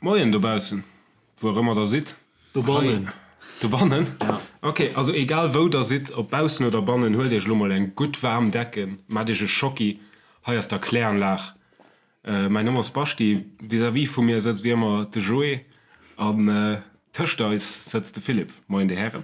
Moien dobaussen, wou och ëmmer der sidd. Dobannen. Dobannen? Ja. Ok, also egal wou der sidd, ob baussen oder bannen, huelt iech elo mol eng gutt waarm Decken, maacht iech e Schocki. Hei ass d'Erkläranlag. Mäin Numm ass Baschi, vis-à-vis vu mir sëtzt wéi ëmmer de Joé an tëscht eis sëtzt de Philippe. Moien dir Hären.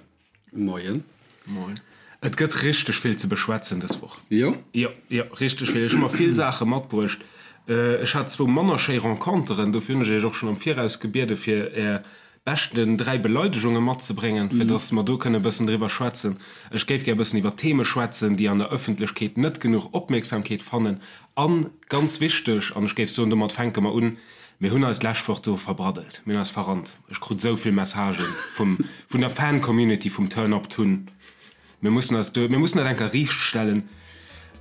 Moien. Moien. Et gëtt richteg vill ze beschwätzen dës Woch. Jo? Jo, jo, richteg vill. Ech hu mer vill Saache matbruecht. Ech hat zwou manner schéi Renconteren, dofir hunn ech iech och schonn am Viraus gebiede fir är beschten 3 Beleidegunge matzebréngen, fir dass mer do kënne e bëssen driwwer schwätzen. Ech géif gär e bëssen iwwer Theme schwätzen, déi an der Ëffentlechkeet net genuch Opmierksamkeet fannen. An, ganz wichteg, an ech géif soen, domat fänke mer un, Mir hunn eis d'lescht Woch do verbraddelt, mir hunn eis verrannt. Ech krut esou vill Messagen vum, vun der Fan-Community vum Turn Up Tun. Mir mussen eis do, mir mussen dat eng Kéier riicht stellen.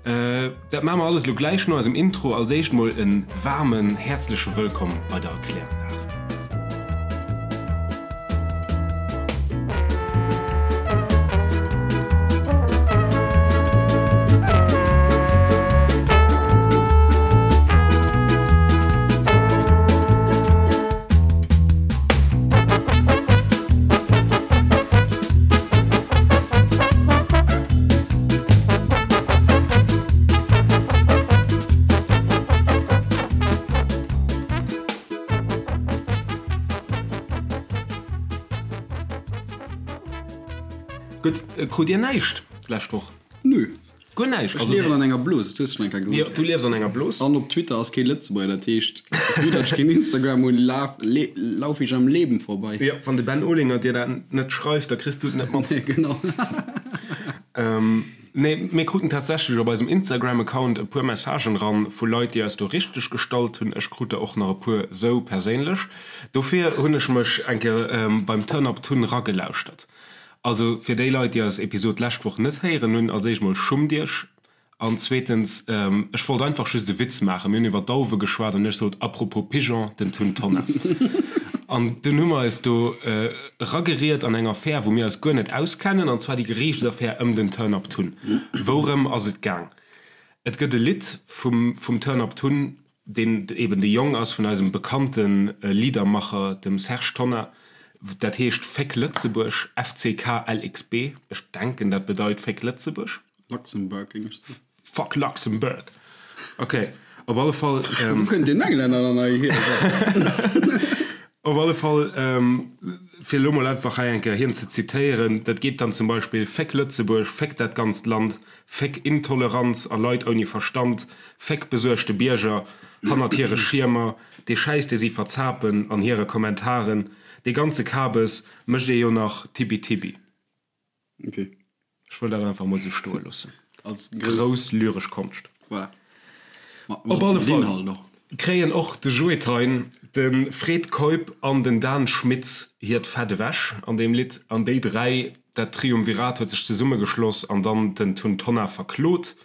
Dat maache mer alles elo gläich no eisem Intro. Als éischt mol e waarmen, häerzleche Wëllkomm bei der Erkläranlag. Gutt, krut Dir näischt d'lescht Woch? Nö. Guer näischt? Ech liewen an enger Blos, dat hues du schon eng Kéier gesot. Jo, du liefs an enger Blos. An op Twitter ass kee Lëtzebuerger, dat heescht, vu datt ech keen Instagram hunn, laf, le, lauf ich am Leben vorbei. Jo, wann de Ben Olinger dir dat net schreift, da kriss du et net mat. Nee, genau. Nee, mir kruten tatsächlech op eisem Instagram-Account e puer Messagen eran vu Leit, déi eis do richteg gestallt hunn. Ech krut der och nach e puer sou perséinlech. Dofir hunn ech mech eng Kéier beim Turn Up Tun ragelauschtert. Also fir déi Leit, déi eis Episod d'lescht Woch net héieren hunn, als éischt mol, schummt iech! An zweetens, ech wollt einfach just e Witz maachen. Mir hunn iwwer Dauwe geschwat an ech sot, Apropos Pigeon, den Tun Tonnar. An dunn hu mer eis do erageriet an eng Affär, wou mir eis guer net auskennen, an zwar déi Geriichtsaffär ëm den Turn Up Tun. Wourëm ass et gaang? Et gëtt e Lidd vum vum Turn Up Tun, deen eben de Jong ass vun eisem bekannte Liedermacher, dem Serge Tonnar. Dat heescht Féck Lëtzebuerg, FCKLXB. Ech denken, dat bedeit Féck Lëtzebuerg. Luxembourg, géing ech soen. Fuck Luxembourg! Ok, op alle Fall. Wou kënnt deen Englänner dann hei hier? Op alle Fall, fir elo mol einfach hei eng Kéier hien ze zitéieren, dat geet dann zum Beispill, Féck Lëtzebuerg, féck dat ganzt Land, féck Intoleranz a Leit ouni Verstand, féck besuergte Bierger hannert hire Schiermer, dee Schäiss dee si verzapen an hire Kommentaren, dee ganze Kabes mécht ee jo nach Tibi-Tibi. Ok. Ech wëll dat einfach mol sou stoe loossen. Als grouss lyresch Konscht. Voilà. Op alle Fall kréien och de Joe Thein, de Fred Keup an den Dan Schmitz hiert Fett ewech an deem Lidd. An déi 3, dat Triumvirat huet sech zesummegeschloss an dann den Tun Tonnar verklot.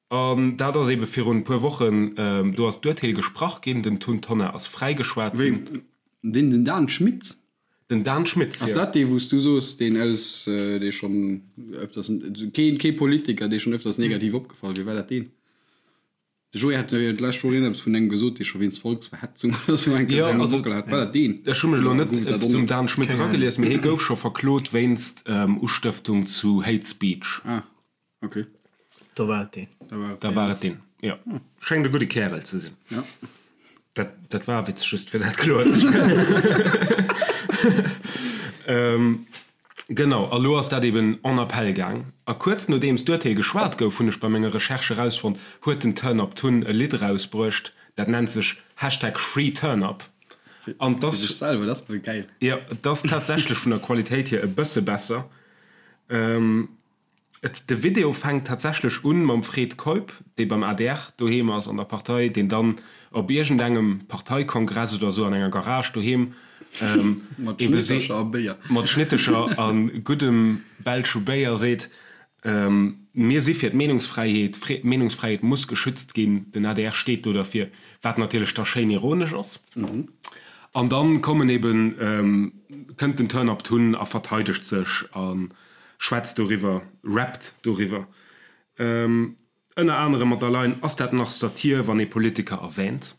An dat ass ebe virun e puer Wochen, do ass d'Urteel gesprach ginn, den Tun Tonnar ass fräigeschwat ginn. Wéi? Deen den Dan Schmitz? Den Dan Schmitz, jo. Ass dat dee wou s du soos, deen aus, dee schonn öfters, keen, kee Politiker, dee schonn öfters negativ opgefall wier? War dat deen? De Joé hat jo d'lescht Woch iergendepes vun engem gesot, dee scho wéinst Volksverhetzung oder sou eng Kéier eng am Bockel hat. War dat deen? Ech hu mech elo net zum Dan Schmitz eragelies, mee hie gouf scho verklot wéinst Ustëftung zu Hate Speech. Ah. Ok. Da war et deen. Da war et deen, jo. Schéngt e gudde Kärel ze sinn. Ja. Dat, dat war e Witz, just fir dat kloer ze stellen. Genau, a lo ass dat eben en appel gaang. A kuerz nodeems d'Urteel geschwat gouf, hunn ech bei menger Recherche erausfonnt, huet den Turn Up Tun e Lidd erausbruecht, dat nennt sech Hashtag FreeTurnUp. An 't ass. Fir sech selwer, dat ass mol gäil. Jo, et ass tatsächlech vun der Qualitéit hier e bësse besser. Et, de Video fänkt tatsächlech un mam Fred Keup, dee beim adr doheem ass an der Partei, deen dann op iergendengem Parteikongress oder sou an enger Garage doheem Mat ebe seet, Schnittercher a Béier. mat Schnittercher a guddem belsche Béier seet, Mir si fir d'Meenungsfräiheet, d'Meenungsfräiheet muss geschützt ginn, den adr steet do derfir, wat natierlech da schéin ironesch ass. An dann kommen eben, kënnt den Turn Up Tun a verteidegt sech a schwätzt doriwwer, rappt doriwwer. Ënner anerem mat der Line Ass dat nach Satir, wann ee Politiker erwähnt?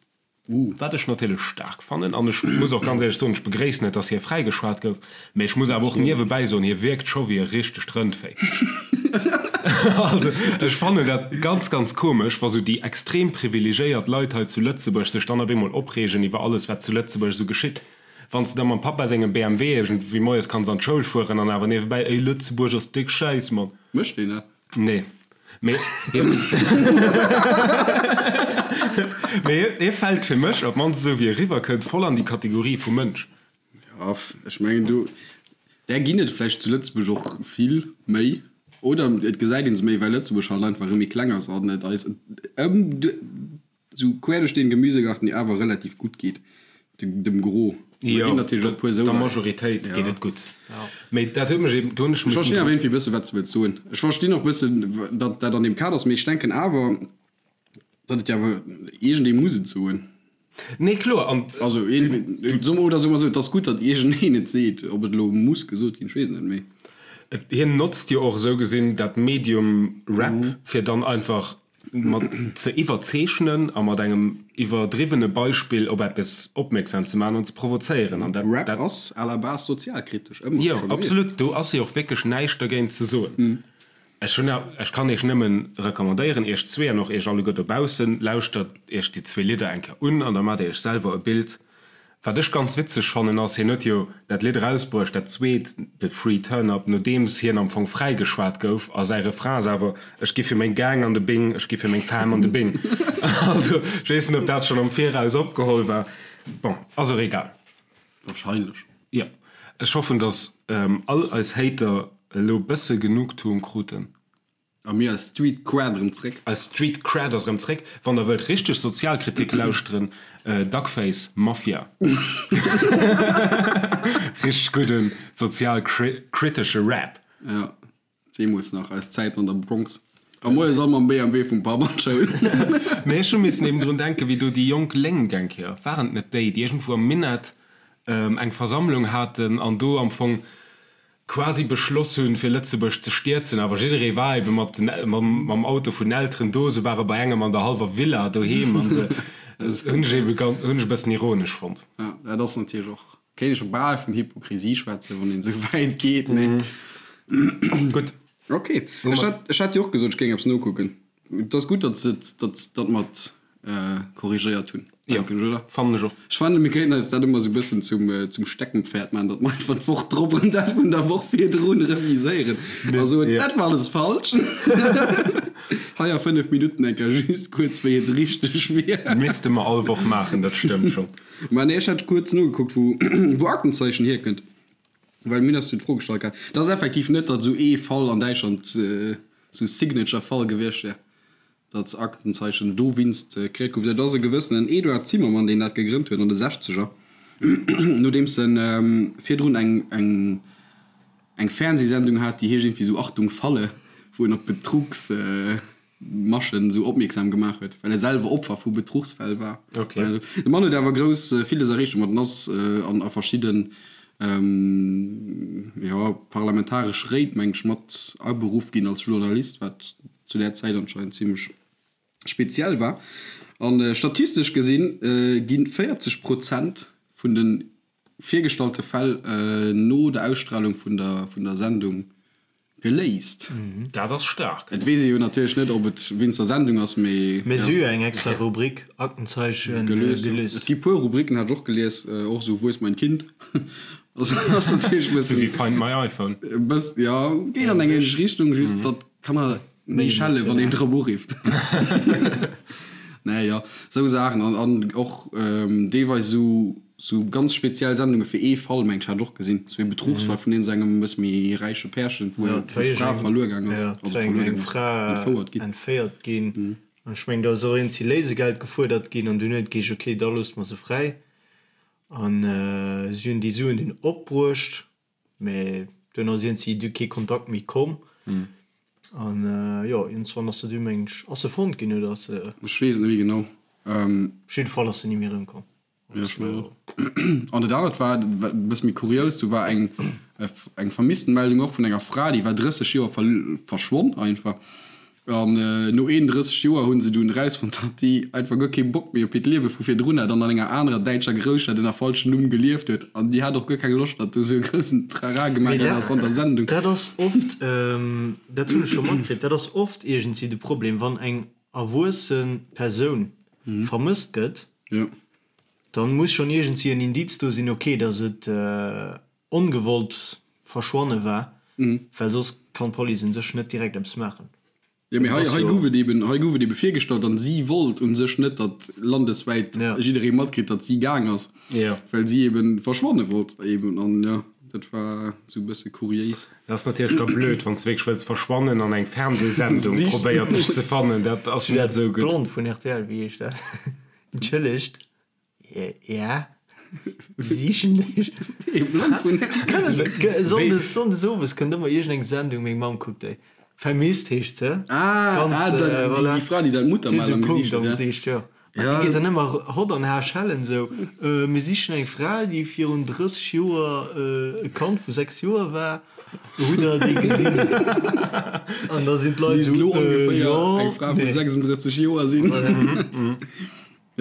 Wat ech natierlech staark fannen, an ech muss och ganz éierlech soen, ech begréissen et, dass hie fräigeschwat gouf, mä ech muss awer och niewebäi soen, hie wierkt scho wéi e richtegt Rëndvéi. Also ech fannen dat ganz, ganz komesch, wa sou déi extrem privilegéiert Leit hei zu Lëtzebuerg sech dann op eemol opreegen iwwer alles, wat zu Lëtzebuerg esou geschitt. Wann s de da mam Pappa sengem BMW iergendwéi moies kanns an d'Schoul fueren an awer niewebäi, Ey, Lëtzebuerg ass déck schäiss, Mann. Mécht deen dat? Nee. Mee mee hie fält fir mech, op d'mannst esou wéi e riwwerkënnt, voll an déi Kategorie vu Mënsch. Jo, ech mengen do, där ginn et vläicht zu Lëtzebuerg och vill méi, oder et gesäit ee se méi, well Lëtzebuerg halt einfach erëm méi kleng ass an et eis ëm Sou quer duerch den Gemüsegarten déi awer relativ gutt geet dem Gros. Jo, der Majoritéit geet et gutt. Mee dat huet mech eben, do hunn ech missen. Ech verstinn awer iergendwéi bëssen wat s de wëlls soen. Ech verstinn och bëssen datt dat an deem Kader ass, mee ech denken awer datt et jo awer iergendee muss et soen. Nee kloer, an. Also iergendwéi, oder soe mer esou, et ass gutt datt iergendeen et seet. Ob et elo muss gesot ginn, ech weess et net, mee. Hien notzt jo och esou gesinn dat Medium Rap fir dann einfach mat ze iwwerzeechnen a mat engem iwwerdriwwene Beispill op eppes opmierksam ze maachen an ze provozéieren. An dat, Rap ass à la base sozialkritesch, ëmmer jo, scho gewiescht. Absolut, do ass jo och wierklech näischt dergéint ze soen. Ech hunn, ech kann iech nëmmen recommandéieren, iech zwee an och iech alleguer dobaussen, lauschtert iech déi zwee Lidder eng Kéier un an da maacht dir iech selwer e Bild, Wat ech ganz witzeg fannen ass, hien huet jo dat Lidd erausbruecht, dat zweet, de Free Turn Up, nodeems hien am Fong fräigeschwat gouf a säi Refrain ass awer, Ech gi fir meng Gang an de Bing, ech gi fir meng Fam an de Bing. Also ech weess net, ob dat schonn am Viraus opgeholl war. Bon, ass och egal. Wahrscheinlech. Jo, ech hoffen, datt all eis Hater elo bësse Genugtuung kruten. A mir eis Street Cred erëm zréck. Eis Street Cred ass erëm zréck. Wann der wëllt richteg Sozialkritik lauschteren, Duckface Mafia. Richteg gudden sozialkritesche Rap. Jo, deemools nach eis Zäiten an der Bronx. A moies all mam BMW vum Papp an d'Schoul. Mee ech hu missen eben drun denken, wéi do déi jonk Lénk eng Kéier, waren et net déi, déi iergendwou am Minett eng Versammlung haten an do am Fong quasi beschloss hunn, fir Lëtzebuerg ze stierzen, awer jidderee war ebe mat den, mam Auto vun den Elteren do, se ware bei engem an der hallwer Villa doheem an se, dat hunn ech ebe ganz, hunn ech e bëssen ironesch fonnt. Ja, dat ass natierlech och, kéint ee scho bal vun Hypokrisie schwätzen, wann een esou wäit geet, mee. Gutt. Ok, ech hat, ech hat jo och gesot, ech géing eppes nokucken. Et ass gutt, datt se et, datt, datt mer et korrigéiert hunn, denken ech, oder? Fannen ech och. Ech fannen, mir kéinten eis dat ëmmer esou e bëssen zum, zum Steckenpferd maachen, datt mer einfach d'Woch drop erëm dat vun der Woch virdrun reviséieren a soen, dat war alles falsch. Hei a 5 Minutten eng Kéier just kuerz, wéi et richteg wier. Misste mer all Woch maachen, dat stëmmt schonn. Mä nee, ech hat kuerz nogekuckt, wou, wou Aktenzeichen hierkënnt. Well mir hunn eis jo d'Fro gestallt gehat. Et ass effektiv net, datt esou ee Fall an Däitschland esou Signature-Fall gewiescht wär, datt Aktenzeichen dowéinst kreéiert gouf. Dat ass e gewëssenen Eduard Zimmermann, deen dat gegrënnt huet an de Sechzeger, nodeems en virdrun eng eng eng Fernsehsendung hat, déi heescht iergendwéi esou Achtung Falle, wou en op Betrugs Maschen esou opmierksam gemaach huet, well e selwer Opfer vu Betruchsfäll war. Okay. De Mann huet awer grouss villes erreecht domat en ass an a verschidden jo parlamentaresch Réit meng ech mat aberuff ginn als Journalist, wat zu där Zäit anscheinend zimmlech speziell war. An statistesch gesinn gi 40 Prozent vun de virgestallte Fäll no der Ausstralung vun der vun der Sendung geléist. Dat ass staark. Et weess ee jo natierlech net, ob et wéinst der Sendung ass, mee. Mee si hu jo eng extra Rubrik, Aktenzeichen gelöst. Et gi puer Rubriken, hat ech och gelies, och esou Wo ist mein Kind? Also ass natierlech e bëssen. Esou wéi Find my iPhone. E bëss, jo, geet an eng ähnlech Richtung, just datt d'Kanner méi schelle wann een drop urifft. Nee, jo, esou Saachen an an och deelweis esou. Sou ganz speziell Sendunge fir ee Fall, meng ech, hat ech och gesinn. Sou ee Betruchsfall vun iergend engem e bësse méi räiche Pärchen, wou d'Fra verluer gaang ass, also verluer gaang ass, entfouert ginn. Entféiert ginn. An ech mengen, do ass och iergendwéi Léisegeld gefuerdert ginn an dunn huet et geheescht, okay, da loosse mer se fräi. An si hunn déi Suen dunn opbruecht. Mee duerno ass iergendwéi du kee Kontakt méi komm. An jo, iergendswann ass se du, mengen ech, ass se fonnt ginn oder ass se. Ech weess et net méi genau. Op jidde Fall ass se ni méi erëmkomm. Jo, ech mengen och. An dat anert war e bësse méi kurios, do war eng eng Vermisstenmeldung och vun enger Fra, déi war 30 Joer verschwonn einfach. An no 31 Joer hu se dunn erausfonnt, datt déi einfach guer kee Bock méi op hiert Liewe vu virdrun hat an an enger anerer däitscher Grousstad ënner falschem Numm gelieft huet. An déi hat och guer keng Loscht, datt do esou e groussen Trara gemaach ginn ass an der Sendung. Dat ass oft, dat hunn ech scho matkritt, dat ass oft iergendwéi de Problem, wann eng erwuesse Persoun vermësst gëtt, dann muss schonn iergendwéi en Indiz do sinn, ok, datt et ongewollt verschwanne war, well soss kann d'Police un sech net direkt eppes maachen. Jo, mee hei, hei gouf et eben, hei gouf et ebe virgestallt an si wollt un sech net, datt landeswäit jidderee matkritt, datt si gaang ass, well si eben verschwanne wollt eben an jo, dat war esou e bësse kuriéis. Dat ass natierlech da blöd, wann s de wierklech wëlls verschwannen an eng Fernsehsendung probéiert dech ze fannen, dat ass net esou gutt. D'Blond vun rtl, wéi heescht dat? Entschëllegt. Ja, wir sichen dech. Sonndes, sonndes owes kënnt ëmmer iergendeng Sendung, meng Mamm kuckt déi. Vermisst heescht se. Ah, Ganz, ah, da, äh, voilà. déi, déi Fra, déi dat Muttermal am Gesicht huet, ja. Gesicht, ja. An déi geet dann ëmmer hott an har schellen esou, äh, mir sichen eng Fra, déi virun 30 Joer äh, e Kand vu 6 Joer war. Hutt der déi gesinn? An da sinn d'Leit esou, äh, jo, eng Fra vu 36 Joer sinn. Voilà.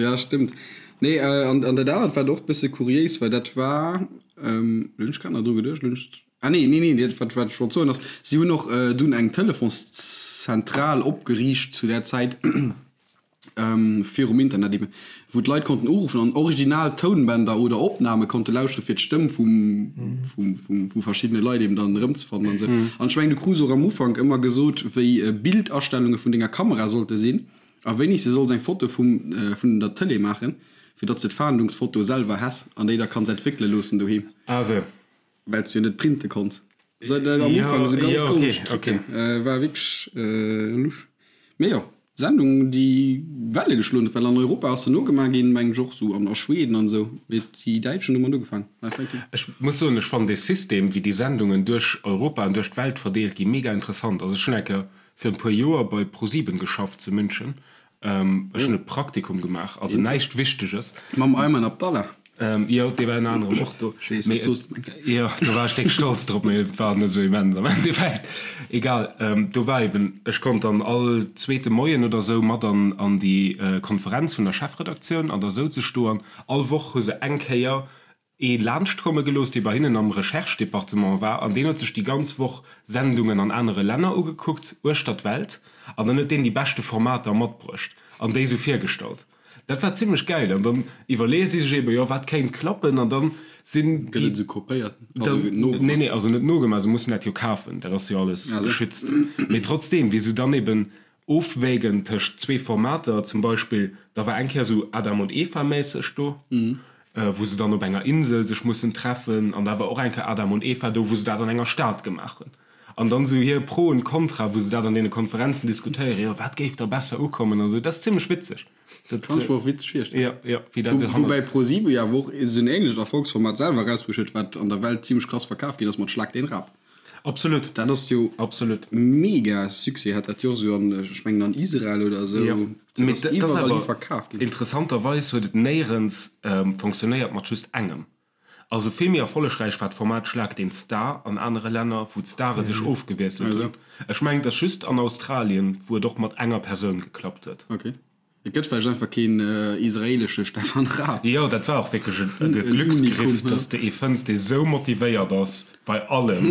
Ja, stëmmt. Nee, an, an dat anert wat och bësse kuriéis war, dat war, ähm, lo hunn ech grad nach dru geduecht, lo hunn ech, ah nee, nee, nee, dat wat, wat ech wollt soen ass, si hunn och dunn eng Telefonszentral opgeriicht zu där Zäit, ähm, virum Internet eben, wou d'Leit konnten uruffen an original Tounbänder oder Opname konnte lauschtere fir d'Stëmm vum, vum, vum, vu verschiddene Leit eben dann erëmzefannen an esou. An ech mengen, du krus och am Ufank ëmmer gesot, wéi Bildastellunge vun denger Kamera sollte sinn. A wéini s de solls eng Foto vum vun der Tëlee maachen, fir datt s de d'Fahndungsfoto selwer häss an déi da kanns entwéckele loossen doheem. Ah sou. Well s de jo net printe konns. Sou dat am Ufank sou ganz komesch Trucken. War wierklech lusch. Mee jo, Sendung déi Welle geschloen huet, well an Europa ass se nogemaach ginn, mengen ech och sou an a Schweden an esou. Mee déi Däitschen hu mat ugefaangen. Ech muss soen, ech fannen dee System wéi déi Sendungen duerch Europa an duerch d'Welt verdeelt ginn mega interessant. Also ech hunn eng Kéier fir en puer Joer bei ProSieben geschafft zu München. Ech hunn e Praktikum gemaach, also näischt Wichteges. Mam Ayman Abdallah? Jo, dee war ënner anerem och do. Ech weess, dat soos de meng. Jo, do war ech déck stolz drop, mee et war net esou immens am Endeffekt. Egal, do war eben, ech konnt dann all zweete Moien oder esou mat an an déi Konferenz vun der Chefredaktioun an da souz ech do an all Woch hu se eng Kéier ee laanscht komme gelooss, dee bei hinnen am Recherche-Departement war, an deen huet sech déi ganz Woch Sendungen an anere Länner ugekuckt, uechter d'Welt, an dann huet deen déi beschte Formater matbruecht an déi sou virgestallt. Dat war zimmlech gäil. An dann iwwerleeë si sech eebe, jo, wat kéint klappen, an dann sinn Gëtt et esou kopéiert? Also gëtt nogemaach? Nee, nee, also net nogemaach, se mussen dat jo kafen, dat ass jo alles geschützt. Mee trotzdeem, wéi se dann eeben Ofwägen tëscht zwee Formater, zum Beispill, da war eng Kéier esou Adam und Eva méisseg do, wou se dann op enger Insel sech mussen treffen, an da war och eng Kéier Adam und Eva do, wou se dat an enger Stad gemaach hunn. An dann esou hir Pro und Contra, wou se dat an deene Konferenzen diskutéieren, jo wat géif da besser ukommen an esou, dat ass zimmlech witzeg. Dat kann ech mer och witzeg virstellen. Jo, jo, wéi dat esou hannert. Woubäi ProSieben jo awer och esou en ähnlecht Erfolgsformat selwer erausbruecht huet, wat an der Welt zimmlech krass verkaf ginn ass mat Schlag den Rab. Absolut. Dat ass jo Absolut. mega Succès hat dat jo och esou an, ech mengen an Israel oder esou. Jo, dat ass iwwerall hi verkaf ginn. Interessanterweis huet et néierens fonctionnéiert mat just engem. Also vill méi erfollegräich war d'Format Schlag den Star an anere Länner, wou d'Stare sech ofgewiesselt hunn. Ech mengen et ass just an Australien, wou et och mat enger Persoun geklappt huet. Okay. Et gëtt vläicht einfach keen israelesche Stefan Raab. Jo, dat war och wierklech e Glücksgriff, dass de ee fënns, dee sou motivéiert ass bei allem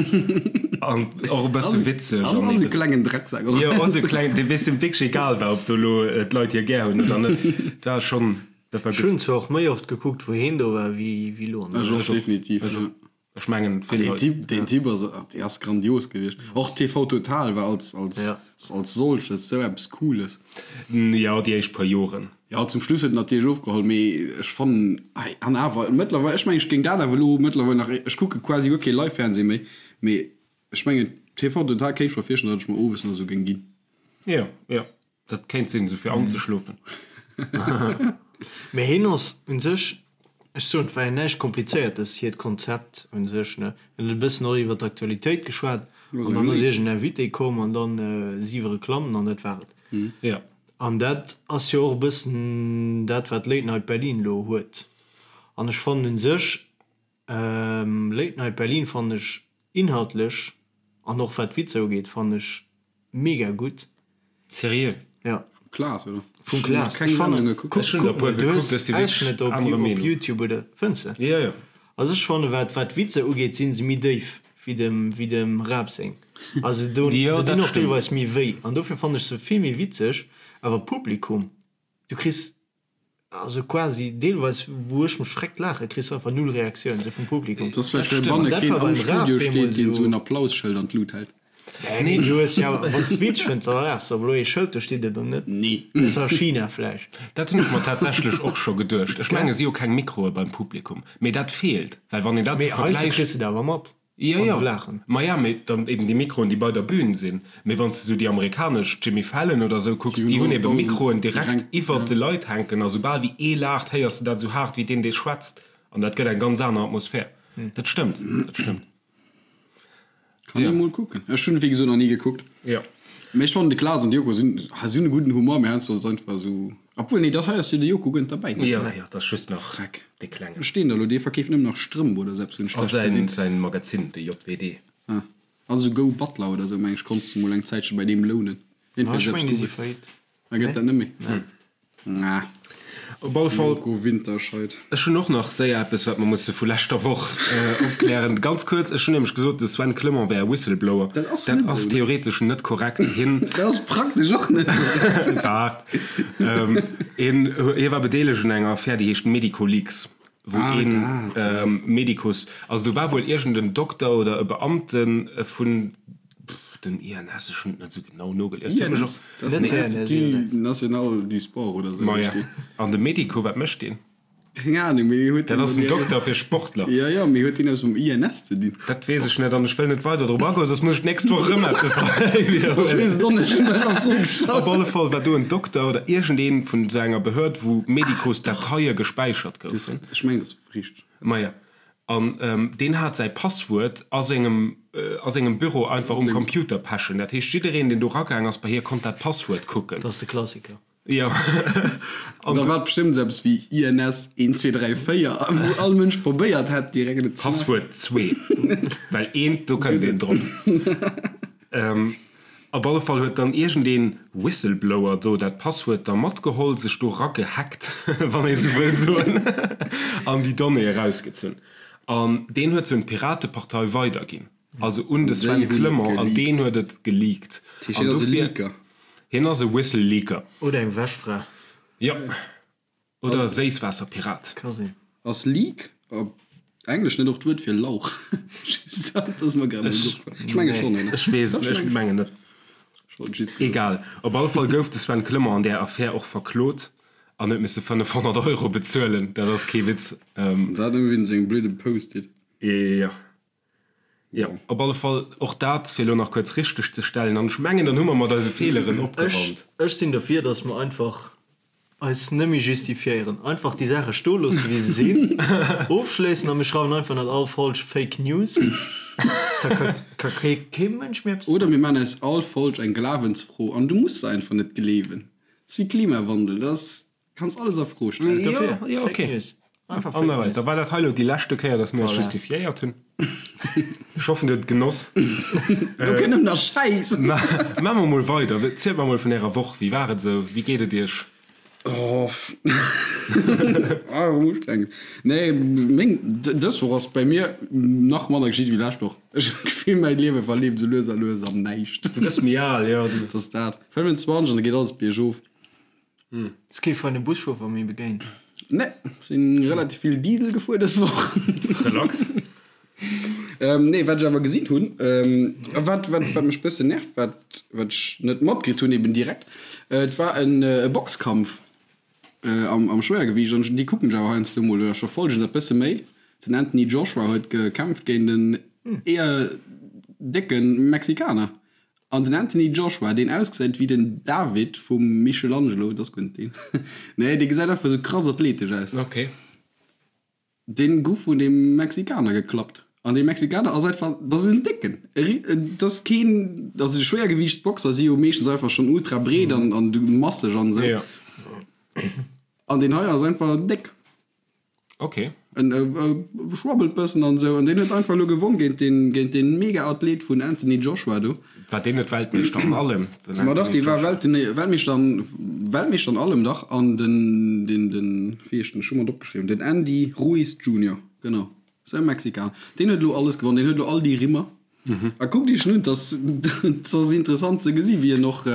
an och e bësse witzeg. An esou klengen Drecksak och. Jo, och esou klengen, dee weess, deem wierklech egal war, ob do elo d'Leit hie gär hunn oder net. Dat war schonn, dat war gutt. Ech hunn zwar och méi oft gekuckt, wou hien do war, wéi elo an der Ech och, definitiv, jo. Ech mengen vill Leit. Deen Typ, deen Typ ass, dee ass grandios gewiescht. Och TV Total war als, als, ja. als solches sou eppes Cooles. Jo, déi éischt puer Joren. Jo, zum Schluss huet en natierlech ofgeholl, mee ech fannen, ei, an awer mëttlerweil, ech mengen, ech géing dat awer elo mëttlerweil nach, ech kucke quasi guer kee Live-Fernseh méi, mee ech mengen TV Total kéint ech mer virstellen, datt ech mer owes nach esou géing ginn. Jo, jo. Dat kéint sinn, esou fir anzeschlofen. Mee hien ass un sech, ech soen, et war jo näischt Komplizéiertes, hiert Konzept un sech, ne. Hien huet e bëssen och iwwer d'Aktualitéit geschwat an dann ass iergend en Invité komm an dann siwe Reklammen an dat war et. Jo. An dat ass jo och e bëssen dat, wat Late Night Berlin elo huet. An ech fannen un sech, Late Night Berlin fannen ech inhaltlech an och wat d'Witzer ugeet, fannen ech mega gutt. Seriö? Ja. Vum Klaas, oder? Vum Klaas. Keng Sendung gekuckt. Ech hunn der e puer gekuckt, ech si wierklech anerer Meenung. Op Youtube oder, fënns de? Jo, jo. Also ech fanne wat wat d'Witzer ugeet sinn se méi déif wéi dem wéi dem Raab seng. Also do Jo, se dat dinn och stëmmt. deelweis méi wéi an dofir fannen ech se vill méi witzeg. Awer Publikum, du kriss also quasi deelweis wou ech mech freckt laache kriss de einfach null Reaktioun sou vum Publikum. Dat ass vläicht well stimmt. banne Dat keen war am beim Raab Studio steet, deemools deen sou sou. en Applausschëld an d'Lut hält. Nee, du hues jo, wann s de witzeg fënns, da laachs de, awer elo ee Schëld, do steet et dann net. Nee. Ausser a China vläicht. Dat hunn ech mer tatsächlech och scho geduecht. Ech menge si hu keng Mikroe beim Publikum, mee dat feelt, well wann een dat Mee sou heiansdo vergläicht. kriss de et awer mat, Jo, wa jo, se laachen. ma ja, mee dann eben déi Mikroen, déi bei der Bühn sinn. Mee wann s de sou déi amerikanesch, Jimmy Fallon oder sou, kucks, Si hunn déi hunn ebe 100.000 Mikroen direkt direkt, iwwert ja. de Leit hänken a soubal wéi ee laacht, héiers de dat sou haart wéi deen, dee schwätzt. An dat gëtt eng ganz aner Atmosphär. Dat stëmmt, dat stëmmt. Kann ee mol kucken. Ech hunn wéi gesot nach ni gekuckt. Jo. Mee ech fannen de Klaas an de Joko sinn, ha si hunn e gudden Humor, mee heiansdo ass et einfach esou, obwuel nee, dat hei ass jo de Joko guer net derbäi, ne? Jo, jo, dat ass just nach Freck. dee Klengen. Wou steet en da lo? Dee verkeeft nëmmen nach Strëmp oder sou eppes, hunn ech A schlecht säin, gesinn. säin Magazin, de JWD. Ah, also Go Butler oder sou, meng ech, konntst de mol eng Zäitche bei deem lounen. Ma Jedenfalls ech eppes mengen, déi si Google. faillite. Da gëtt dat net méi. Na. Op alle Fall. Joko Winterscheid. Ech hunn och nach séier eppes, wat mer musse vu leschter Woch opklären. Ganz kuerz, ech hunn nämlech gesot, de Sven Clement wär e Whistleblower. Dat ass Dat net ass esou, ne? theoretesch net korrekt. Hien. Dat ass praktesch och net korrekt. Waart. Hien, hie war bedeelegt un enger Affär, déi heescht Medicoleaks, wou Ah, een dat, ja. Medicus, also do war wuel iergend en Dokter oder e Beamte vun Den INS, ech hunn et net esou genau nogelies. Huet mech INS? och. Dat ass den Institut National du Sport oder esou Maja. heescht deen. An de Medico, wat mécht deen? Keng Ahnung, mee huet Dat deen ass dann en Dokter fir Sportler. Jo, jo, mee huet deen eppes mam INS ze dinn? Dat weess ech net an ech wëll net weider drop agoen, soss muss ech d'nächst Woch erëm eppes Ech widderhuelen. weess et och net, ech hunn einfach d'Fro gestallt. Op alle Fall war do en Dokter oder iergendeen vun esou enger Behörd, wou Medicos-Dateie gespäichert goufen. Ech mengen, dat ass richteg. Maja. An deen hat säi Passwuert a sengem a sengem Büro einfach um Computer pechen. Dat heescht, jiddereen, deen do ragaang ass bei hie, konnt dat Passwuert kucken. Dat ass de Klassiker. Jo. An da war et bestëmmt esou eppes wéi INS 1, 2, 3, 4, wou all Mënsch probéiert hätt, direkt et ze maachen. Passwuert zwee, well eent, do kënnt een drop. Op alle Fall huet dann iergendeen Whistleblower do dat Passwuert da matgeholl, sech do ragehackt, wann ee sou wëll soen, an déi Donnée erausgezunn. An deen huet se un d'Piratepartei weiderginn, also un de Sven Clement, an deen huet et geleakt. Dat heescht, hien ass e Leaker? Hien ass e Whistle-Leaker. Oder eng Wäschfra. Jo. Oder Séisswaasserpirat. Ka sinn. Ass Leek op Englesch net och d'Wuert fir Lauch? Just dat ass mer grad emol opgefall. Ech menge schonn, oder? Ech weess et net, ech mengen net. Ech wollt just gesot. Egal, op alle Fall gouf de Sven Clement an där Affär och verklot an huet misse 500 Euro bezuelen. Dat ass kee Witz. Dat nëmme wéinst sengem blöde Post-it. Jo. Jo, op alle Fall och dat, fir elo nach kuerz richteg ze stellen. An ech mengen, dann hu mer mat eise Feeleren opgeraumt. Ech sinn dofir, datt mer einfach eis net méi justifiéieren. Einfach déi Saache stoe loosse wéi se sinn, ofschléissen a mir schreiwen einfach net all Folg Fake News. Da ka kee Mënsch méi eppes Oder mir maachen aus all Folg eng Glawensfro an du muss se einfach net gleewen. Ass wéi Klimawandel, dat ass Kanns alles a Fro stellen. Dofir, ja, ja, okay. News. Einfach Fake News. Da war dat hei lo déi leschte Kéier, dass mir eis justifiéiert hunn. Ech hoffen, dir hutt et genoss. Lo kënnt nëmmen nach Schäiss. Maache mer mol weider. Zielt mer mol vun ärer Woch. Wéi war et esou? Wéi geet et iech? Oh, ah, ustrengend. Nee, meng, dës Woch ass bei mir nach manner geschitt wéi lescht Woch. Ech hunn d'Gefill, mäi Liewe verleeft esou lues a lues am Näischt. Du gëss méi al, jo. Dat ass dat. 25 an da geet alles biergof. Hues kee feine Buschauffer méi begéint? Nee, sinn relativ vill Diesel gefuer dës Woch. Relax. Nee, wat ech awer gesinn hunn, a wat, wat, wat mech bëssen nervt, wat, wat ech net matkritt hunn eben direkt, et war en e Boxkampf am, am Schwéiergewiicht an déi kucken ech awer heiansdo mol oder ech verfollegen dat bësse méi. Den Anthony Joshua huet gekämpft géint en eher décke Mexikaner. An den Anthony Joshua, deen ausgesäit wéi den David vum Michelangelo, dat ass guer net deen, nee, dee gesäit einfach esou krass athletesch aus. Ok. Deen guff vun deem Mexikaner geklappt. An dee Mexikaner ass einfach, dat ass en Décken. Dat ass keen, also déi Schwéiergewiichtsboxer si jo meeschtens einfach schonn ultra breet an an masseg an esou. Jo. An deen hei ass einfach déck. Ok. En schwabbelt bëssen an esou an deen huet einfach elo gewonn géint deen, géint deen Mega-Athlet vun Anthony Joshua do. War deen net Weltmeeschter an allem? Den Ma dach, dee war Welt, Weltmeeschter an, Weltmeeschter an allem, dach. An den, den, den, wéi heescht den, ech hu mer et opgeschriwwen, den Andy Ruiz Junior, genau, sou e Mexikaner. Deen huet elo alles gewonn, deen huet elo all déi Rimmer. A kuckt iech en un, 't ass, 't ass interessant ze gesi wéi en och,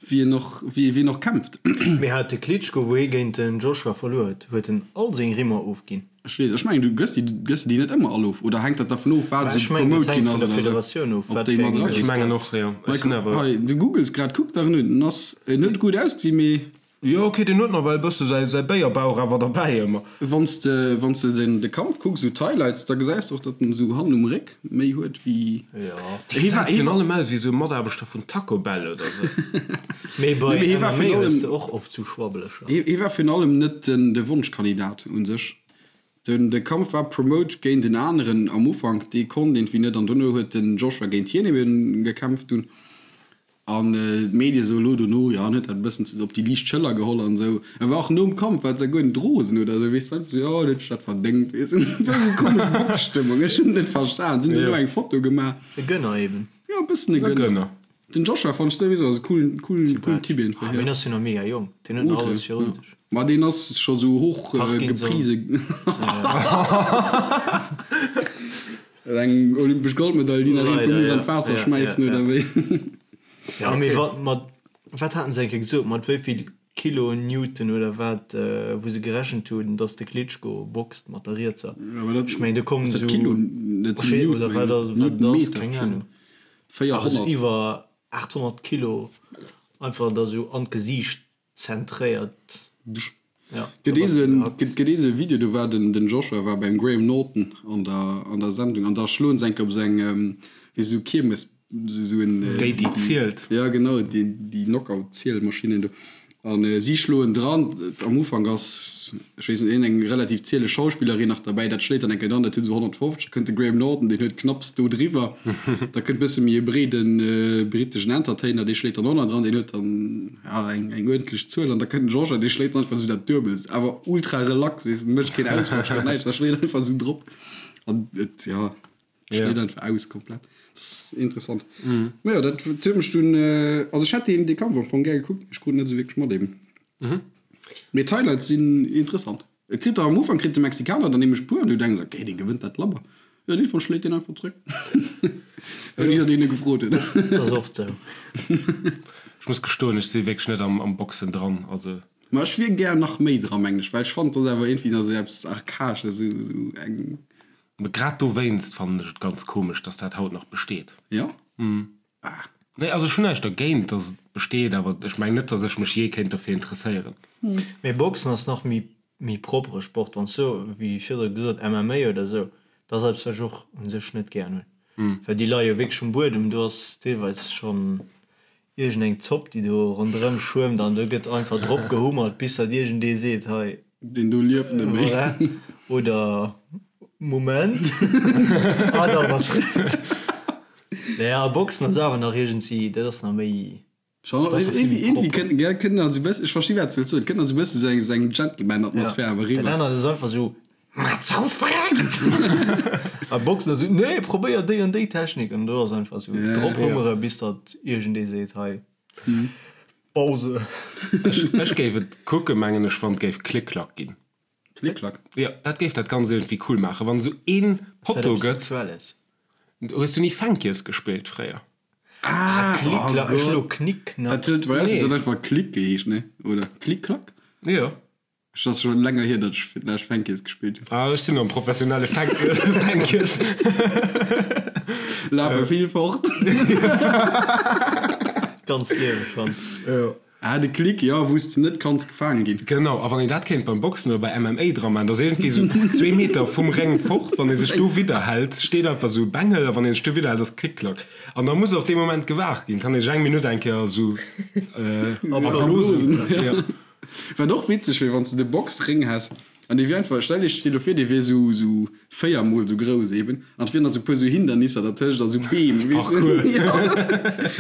Wéi en och, wéi wien och kämpft. Mee hat de Klitschko, wou hie géint den Joshua verluer huet, huet en all seng Rimmer ofginn? Ech weess, ech mengen du gëss déi, gëss de déi net ëmmer all of oder hänkt dat dervun of wat esou promote ginn ass oder esou? Ob déi mat era ginn? Ech mengen och, jo. Ech sinn awer. Hei, du googles grad, kuck der en un, en ass, en huet gutt ausgesinn, mee. Jo ok, deen huet nawell e bësse säi säi Béierbauch awer derbäi ëmmer. Wann s de wann s de den de Kampf kucks, esou d'Highlights, da gesäis de och, datt en esou hannen um Réck méi huet wéi. Jo. Dee gesäit virun allem aus wéi esou e Mataarbechter vun Taco Bell oder sou. Mee bei Nee, mee hie war MMA virun hues allem de och oft sou Schwabbeleger. hie hie war virun allem net den de Wonschkandidat un sech. Den de Kampf war promote géint en aneren am Ufank, dee konnt iergendwéi net an dono huet den Joshua géint hien eben gekämpft dunn. An d'Medie sou elo dono, jo, en huet dat e bëssen op déi liicht Schëller geholl an esou. E war och nom Kampf, war et souguer net rosen oder esou, weess de, war einfach sou, jo, en huet sech dat verdéngt, weess de. Et war esou komesch Boxstëmmung, ech hunn et net verstan. Si hunn dono eng Foto gemaach. E Gönner eben. Jo, e bëssen e Gönner. Den Joshua fannen ech souwisou ass e coolen, coolen, coolen Typ einfach, jo. Mee en ass jo nach mega jonk, deen huet nach alles virun sech. Ma deen ass scho sou hoch geprise. Eng olympesch Goldmedail, déi nach een vu muss an d'Waasser schmäissen, oder wéi? Jo, mee wat mat, wat haten se eng Kéier gesot, mat wéi vill Kilo Newton oder wat, wou se gerechent hunn, datt de Klitschko boxt mat der rietser? Ech mengen, do kommen esou, Kilo, dat sinn Newton, oder wat ass, wat dat ass, keng Ahnung. 400. Awer esou iwwer 800 Kilo einfach da sou an d'Gesiicht Zentréiert. Ja, Gëtt ee sou gëtt ee sou e Video, do war den den Joshua war beim Graham Norton an der an der Sendung an da schloen se enke op sou eng wéi sou Kiermes sou en Déi déi zielt. Ja genau, déi déi Knockout Zielmaschinen do an si schloen dran. Am Ufank ass ech weess net iergend eng relativ zieleg Schauspillerin nach derbäi, dat schléit dann enke dran, dat huet esou 150, da kënnt de Graham Norton, deen huet knapps do driwwer, da kënnt bësse méi e breeden briteschen Entertainer, dee schléit dann och nach dran, deen huet dann ja eng eng uerdentlech Zuel an da kënnt den Georges an dee schléit dann einfach esou dat Duebelst, awer ultra relax, weess de, mécht keen Ausfall, schléit näischt, da schléit einfach esou drop an et ja schléit einfach aus komplett. Dat ass interessant. Ma jo, dat huet mech dunn, also ech hätt deen dee Kampf am Fong gär gekuckt, mee ech krut net esou wierklech mat eben. Mee d'Highlights sinn interessant. Et kritt der am Ufank kritt de Mexikaner dann nämlech puer an du denks ok dee gewënnt dat labber. Jo dee Fall schléit deen einfach zréck. Ouni datt een e gefrot huet. Dat ass oft sou. Ech muss gestoen, ech si wierklech net am Boxen dran, also. Ma ech wier gär nach méi dran mengen ech, well ech fannen et ass awer iergendwéi nach sou eppes archaesches, sou sou eng. Mee grad dowéinst fannen ech et ganz komesch, dass dat haut nach besteet. Jo? Ah. Nee, also ech hunn näischt dergéint, dass et besteet, awer ech mengen net, dass ech mech jee kéint dofir interesséieren. Mee Boxen ass nach méi méi proppere Sport. Wann s du, wéi virdru gesot, MMA oder esou, dat ass eppes, wat ech och u sech net gären hunn, well déi leie jo wierklech um Buedem, do ass deelweis schonn iergendeng Zopp, déi do ronderëm schwëmmt an do gëtt einfach drop gehummert, bis datt iergendee seet, hei. Deen do lieft net méi. Voilà. Oder Moment, ah dann ass gutt. Nee, a Boxen ass awer nach iergendwéi, dat ass nach méi. Schon, Dat ass irgendwie, vill méi irgendwie propper. kënnt, gell, kënnt nach esou bëssen, ech versti wat s du wëlls soen, et kënnt nach esou bëssen esou eng, esou eng Gentleman-Atmosphär awer Dat eriwwer. anert ass einfach esou, Mat sou verreckt! A Boxen ass esou, Nee, probéier déi an déi Technik. An do ass einfach esou, Ja, drop ja. hummere bis datt iergendee seet, hei, Pause. Ech, ech géif et kucken, mengen ech, wann et géif Klick-Klack ginn. Klick-Klack? Jo, dat géif dat Ganzt iergendwéi cool maachen, wann esou een Ass dat Potto eppes gëtt. Sexuelles? Hues du ni Fänkies gespillt fréier? Ah, Klick oh Klack, ech Gott. elo Knick Knack. Dat huet bei eis Nee. huet dat einfach Klick geheescht, ne? Oder Klick-Klack? Jo. Ech ass schon länger hier, datt ech fir d'lescht Fänkies gespillt hunn. Ah, ech sinn am professionelle Fänkies. Lafe vill fort. Ganz Liewe schon. Jo. Ah, de Klick, jo, wou s de net kanns gefaange ginn. Genau, a wann een dat kéint beim Boxen oder bei MMA dra maachen, dass iergendwéi sou zwee Meter vum Réng fort, wann ee sech do widderhält, steet einfach sou e Bengel, a wann een sech do widderhält, ass Klick-Klack. An da muss och dee Moment gewaart ginn, kann ee sech eng Minutt eng Kéier sou erblosen. Jo. Wat och witzeg wier, wann s de de Boxréng häss. An dee wier einfach, stell iech dee lo vir, dee wier sou, sou 4 mol sou grouss eben, an et wieren nach sou puer sou Hindernisser dertëscht a sou Beem, weess de, Parcours. jo,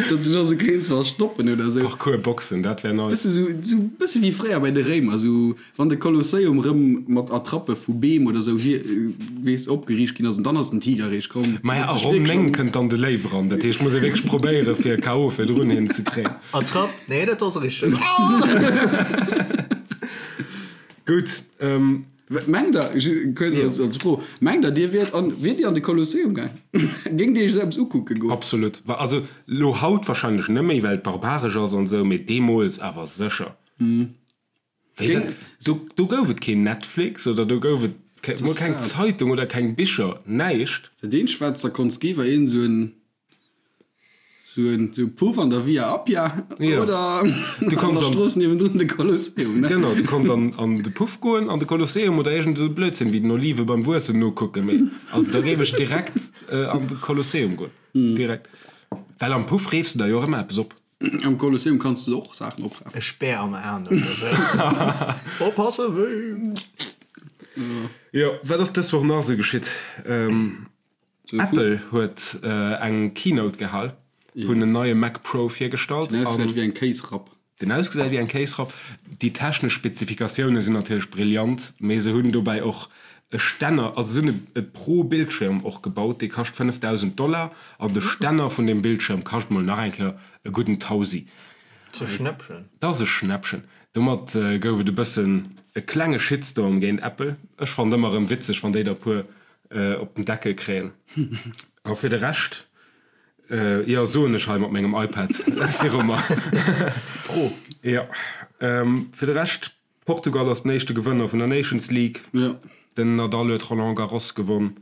datt sech och sou kéints verstoppen oder sou. Parcours-Boxen, dat wär nice. Bësse sou, sou bësse wéi fréier bei de Réimer, sou wann de Kolosseum rëm mat Attrappe vu Beem oder sou hier, weess, opgeriicht ginn ass, an dann ass den Tiger eréischt komm. Maja, Huet a sech Ronn wierklech 9 an. kënnt dann de Léiw eran, dat heescht, muss ee wierklech probéiere fir e KO virdrun hin ze kréien. Attrapp, nee, dat ass richteg. Gutt. Mengt der, kuerz als, als Fro, mengt der dir wiert an, wiert dir an de Kolosseum gaang? Géingt dir iech esou eppes ukucke goen? Absolut. Also lo haut wahrscheinlech net méi, well et barbaresch ass an esou, mee deemools awer sécher. Wéi dat, do, do gouf et keen Netflix oder do gouf et ke, mol keng Zeitung oder keng Bicher, näischt. Dat eenzegt wat s der konns gi war een esou en Sou en Puff an der Via Appia oder an der Strooss niewendrun de Kolosseum, ne? Genau, du konns an de Puff goen, an de Kolosseum oder iergend esou Blödsinn wéi den Olive beim Wuessen nokucken. Mee also da géif ech direkt an de Kolosseum goen. Direkt. Well am Puff reefs de der jo och ëmmer eppes op. Am Kolosseum kanns de och Saachen oprafen. E Speer am Aen oder esou. Oppassen, wéi! Jo, wat ass dës Woch nach esou geschitt? Apple huet eng Keynote gehal, hunn en neie Mac Pro virgestallt. Den ausgesäit wéi eng Kéisrapp. Den ausgesäit wéi eng Kéisrapp. Déi technesch Spezifikatioune sinn natierlech brillant, mee se hunn dobäi och e Stänner, also se hunn e Pro-Bildschirm och gebaut, dee kascht 5.000 Dollar an de Stänner vun deem Bildschirm kascht mol nach eng Kéier e gudden Tausi. Dat ass e Schnäppchen. Dat ass e Schnäppchen. Domat gouf et e bëssen e klenge Shitstorm géint Apple. Ech fannen ëmmer erëm witzeg, wann déi der e puer op den Deckel kréien. A fir de Rescht, jo, soen ech hei mat mengem iPad viru mer. Pro. Jo. Fir de Rescht, Portugal ass den éischte Gewënner vun der Nations League. Den Nadal huet Roland Garros gewonn.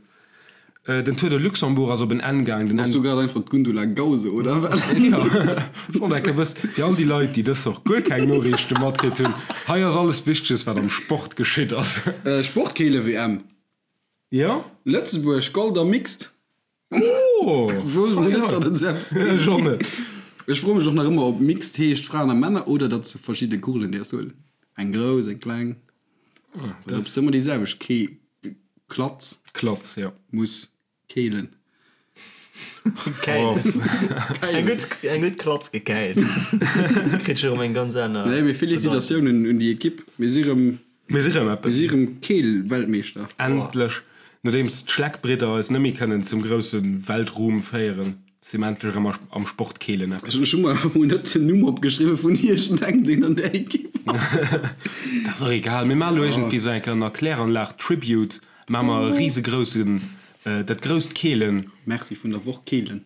Den Tour de Luxembourg ass op en Enn gaang. Bass du grad einfach d'Gundula Gause, oder wat? Jo, ech wollt enke wëssen, fir all déi Leit, déi dës Woch guer keng Noriichte matkritt hunn, hei ass alles Wichteges, wat am Sport geschitt ass. Sportkeele-WM. Jo. Lëtzebuerg, Gold am Mixed. Oh! Wou mol net, datt et eppes géif Ech och ginn. net. Ech froe mech och nach ëmmer, ob Mixed heescht Fraen a Männer oder datt se verschidde Kugelen däerfs huelen. Eng grouss, eng kleng. Oder ob s de ëmmer déi selwecht Kee, Klatz. Klatz, jo. Muss Keelen. Käilen. Eng gutt, eng gutt Klatz gekäilt. Kritt scho rëm eng ganz aner. Nee, mee Félicitatiounen un déi Ekipp. Mir si rëm, Mir si rëm mir eppes. si rëm Keel-Weltmeeschter. Endlech, nodeems d'Schleckbridder eis net méi kënnen zum grousse Weltruhm féieren, si mir endlech erëm am Sport Keelen eppes. Ech hu mer awer mol net den Numm opgeschriwwen vun iergendengem, deen an där Ekipp ass. Dat ass och egal. Mir maachen elo iergendwéi esou eng kleng Erkläranlag-Tribute, maache mer e risegroussen Dat grousst Keelen. Merci vun der Woch Keelen.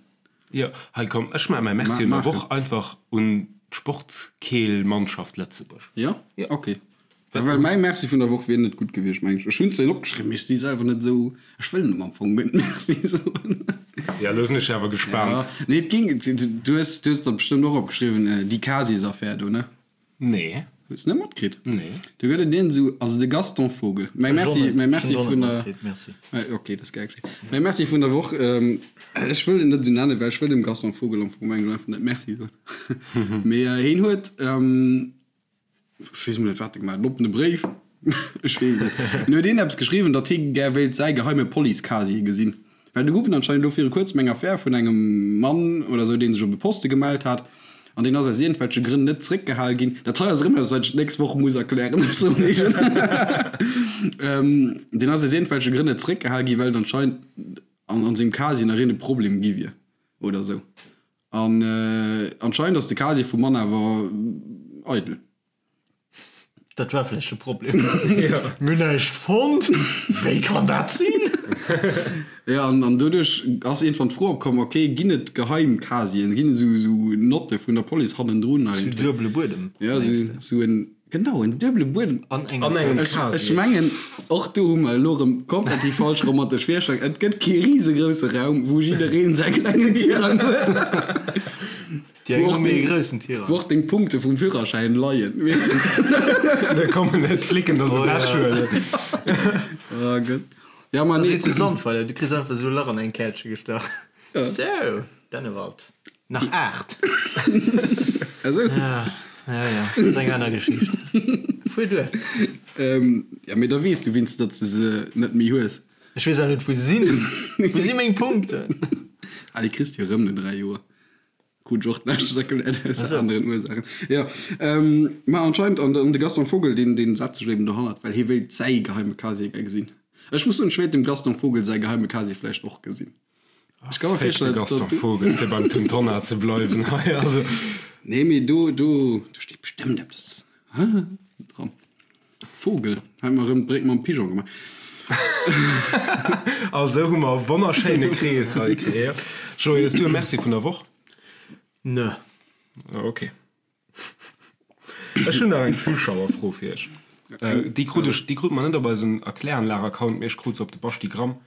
Jo, hei komm, ech maache mäi Merci vun der Woch einfach un d'Sportkeelmannschaft Lëtzebuerg. Jo? Ok. Well mäi Merci vun der Woch wier net gutt gewiescht, meng ech. Ech hunn zwar een opgeschriwwen, mee ech si selwer net esou, ech wëll net am Fong guer net Merci soen. Jo, elo sinn ech awer gespaant. Nee, et ging, du hues, du hues dat bestëmmt och opgeschriwwen, déi Casis-Affär do, ne? Nee. Hues net matkritt? Nee. Do gëtt et een esou, also de Gaston Vogel. Mäi Merci, mäi Merci vun der. Merci. Ok, dat ass gär geschéien. Mäi Merci vun der Woch, ech wëll en net esou nennen, well ech wëll dem Gaston Vogel am Fong mengen einfach net Merci soen. Mee heen huet, ech weess emol net wat e gemaach huet, en oppene Bréif, ech weess et net. En huet een eppes geschriwwen, datt hie gär wéilt säi geheime Police-Casier gesinn. Well do gouf et anscheinend elo viru kuerzem eng Affär vun engem Mann oder sou, dee sech op e Poste gemellt hat an deen ass aus iergendwelche Grënn net zréckgehal ginn. Dat hei ass erëm eppes, wat ech d'nächst Woch muss erklären, ech soen iech et. Deen ass aus iergendwelche Grënn net zréckgehal ginn, well et anscheinend an an sengem Casier nach iergend e Problem gi wier oder sou. An anscheinend ass de Casier vum Mann awer eidel. Dat war vläicht de Problem. Mir hunn näischt fonnt. Wéi kann dat sinn? Jo, an, an doduerch ass iergendwann d'Fro opkomm, ok, ginn et geheim Casieren, ginn et esou, esou Notte vun der Police hannendrun Sou eigentlech? duebele Buedem, Ja, mengs esou, de? esou en, genau, en duebele Buedem. An engem An engem Ech, Casier. ech mengen, och do hu mer elo erëm komplett déi falsch romantesch Virstellung. Et gëtt kee risegrousse Raum, wou jiddereen säi klengen Tirang huet. Déi eng hu méi e groussen Tirang. Wou och deng Punkte vum Führerschäin leien, weess de. Da kommen net d'Flicken der se ewechhuelen. Oh Gott. Ja, ma Dat nee. ass zu Sandweiler, du kriss einfach esou e Lach an eng Kärtche gestach. Sou, Dennewald. Nach 8. Esou? Ja, ja, ja, dat ass eng aner Geschicht. Fuer duer. Ja, mee da weess du wéinst, datt s de se net méi hues. Ech weess awer net, wou se sinn. Wou si meng Punkten? Ah, déi kriss de jo erëm no 3 Joer. Krut ech och d'lescht erkläert aus aneren Ursaachen. Jo, ma anscheinend, an de Gaston Vogel, deen, deen setzt sech eben dohannert, well hie wéilt säi geheime Casier gär gesinn. Ech muss soen, ech wéilt dem Gaston Vogel säi geheime Casier vläicht och gesinn. Ech ka mer virstellen, datt. Gaston Vogel, fir beim Tun Tonnar ze bleiwen hei, also. Nee, mee do, do, do steet bestëmmt eppes dran. Vogel, hei mer erëm d'Bréck mam Pigeon gemaach. A sou hu mer e wonnerschéine Krees hei kreéiert. Joé, hues du e Merci vun der Woch? Nö. Ok. Ech hunn nach eng Zuschauerfro fir iech. Déi krut ech, déi krut mer net op eisen Erkläranlag-Account, mee ech krut se op de Basti-Gramm.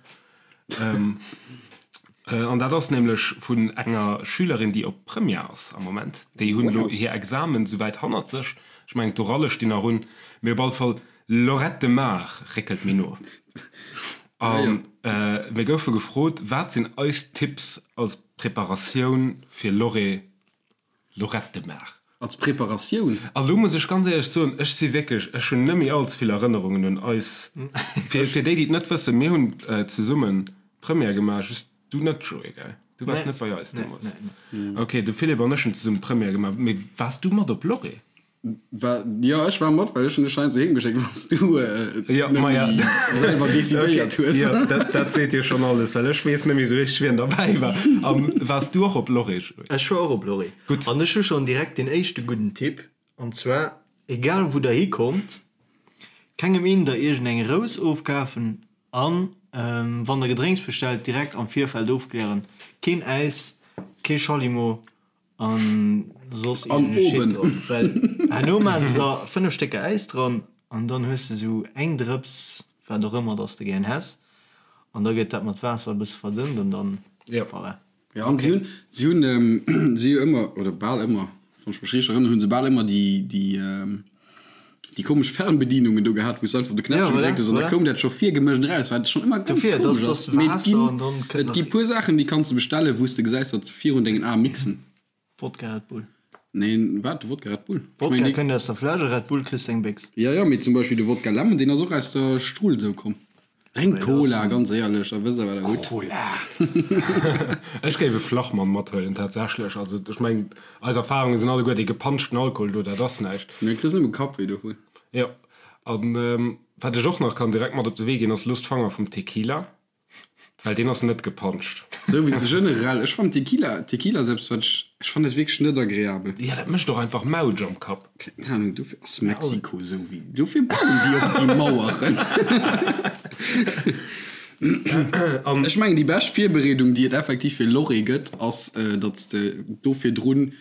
An dat ass nämlech vun enger Schülerin, déi op Première ass am Moment. Déi hunn elo hir Examen souwäit hannert sech. Ech mengen, d'Oralle stinn nach un. Mee op alle Fall, Lloret de Mar réckelt méi no. A mir goufe gefrot, Wat sinn eis Tipps als Preparatioun fir Lloret Lloret de Mar. Als Preparatioun? A lo muss ech ganz éierlech soen, ech si wierklech, ech hunn net méi all ze vill Erënnerungen un eis. Fir, fir déi, déi et net wëssen, mir hunn zesummen d'Première gemaach, just du net, Joé, gell? Du waars net bei eis deemools. Ok, de Philippe an ech hunn zesumme d'Première gemaach. Mee waars du mat op Lloret? War, jo, ech war mat, well ech hunn dech heiansdo heem geschéckt, wann s du Jo, net ma ja. méi selwer decidéiert Okay, hues. jo, dat, dat seet dir schonn alles, well ech weess net méi esou richteg, wien derbäi war. A waars du och op Lloret, Joé? Ech war och op Lloret. Gutt. An ech hu schonn direkt deen éischte gudden Tipp, an zwar, egal wou der hikommt, kengem een der iergend eng Rous ofkafen an wann der Gedrénks bestellt, direkt am Virfeld ofklären, keen Äis, kee Schallimo, An soss An iergend e Shit oben. dran. Well herno maachen se der 5 Stécker Äis dran an dann hues de sou eng Drëps wat och ëmmer dass de gären häss an da gëtt dat mat Waasser e bësse verdënnt an dann Jo. voilà. Ja, an si hunn, si hunn, si hu ëmmer, oder bal ëmmer, wann ech mech richteg erënneren, hu se bal ëmmer déi, déi, déi komesch Fernbedienungen do gehat, wou s de einfach op de Ja, Knäppche voilà, gedréckt hues an da voilà. koum dat scho virgemëscht eraus, wat schonn ëmmer ganz Dofir, komesch dass ass. dass Mee et Waasser ginn, an dann kënnt et gi nach puer Saachen, déi kanns de bestellen, wou s de gesäis, datt se virun dengen Ae mixen. Wodka, Red Bull. Neen, wat? De Wodka Red Bull? Ech Wodka mengen, dee. kënnt aus der Fläsch a Red Bull kriss de eng Béchs. Ja, ja, mee zum Beispill de Wodka Lemon, deen ass och aus der Strull sou komm. Drénkt Mee dat ass Cola, en. ganz éierlech, da wësst der, wat der hutt. Cola! Ech géif e Flachmann mathuelen, tatsächlech. Also, ech mengen, eis Erfahrungen sinn alleguer, dee gepanschten Alkohol do, dat ass näischt. Mee kriss nëmme Kappwéi dovun. Jo, an wat ech och nach kann direkt mat op de Wee ginn, ass, Loosst d'Fanger vum Tequila. Well deen ass net gepanscht. Souwisou generell, ech fannen Tequila, Tequila selbst wat ech, ech fannen dat wierklech net agreabel. Jo, dat mécht och einfach Mautsch am Kapp. Keng Ahnung, dofir ass Mexiko esou wéi, dofir bauen déi och déi Maueren. An. Ech mengen déi bescht Virbereedung déi et effektiv fir Lorry gëtt ass, datt s de do virdrun,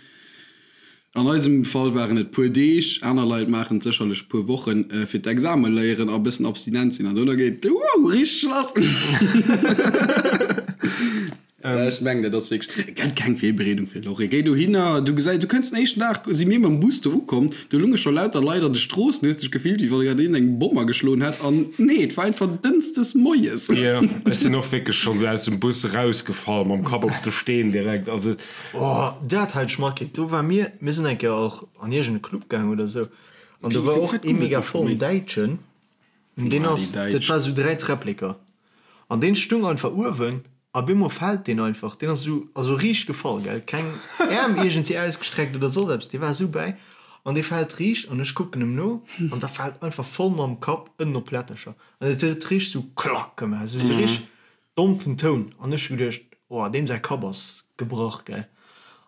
An eisem Fall waren et puer Deeg, aner Leit maachen et sécherlech puer Wochen, fir d'Exame léieren a bëssen abstinent sinn an dono geet et wouh richteg lass. Ech mengen dat ass wierklech, et gëtt keng Virbereedung fir Lorry. Géi dohinner, du gesäis, du kënns den éischten Dag, si mir mam Bus do ukomm, do lunge scho lauter Leit an de Stroossen, du hues dech gefillt wéi wann grad een eng Bomm ageschloen hätt an nee, et war einfach dënschdes moies. Jo, ech sinn och wierklech schonn esou aus dem Bus erausgefall mam Kapp op de Steen direkt, also. Oh, dat hat ech matkritt. Do war mir, mir sinn eng Kéier och an iergend e Club gaang oder sou, an do war och ee mega vollen Däitschen, an deen ass, dat war sou 3 Träppleker, an deen stung einfach uewen, a bemol fält deen einfach, deen ass sou, also riicht gefall, gell, keng Äerm iergendwéi ausgestreckt oder soss eppes, dee war sou bäi, an dee fält riicht, an ech kucken em no, an da fält einfach voll mam Kapp ënnen op Plättercher, an et huet richteg sou klack gemaach, sou richteg Dompfen Toun an ech hu geduecht, oh deem säi Kapp ass gebrach, gell.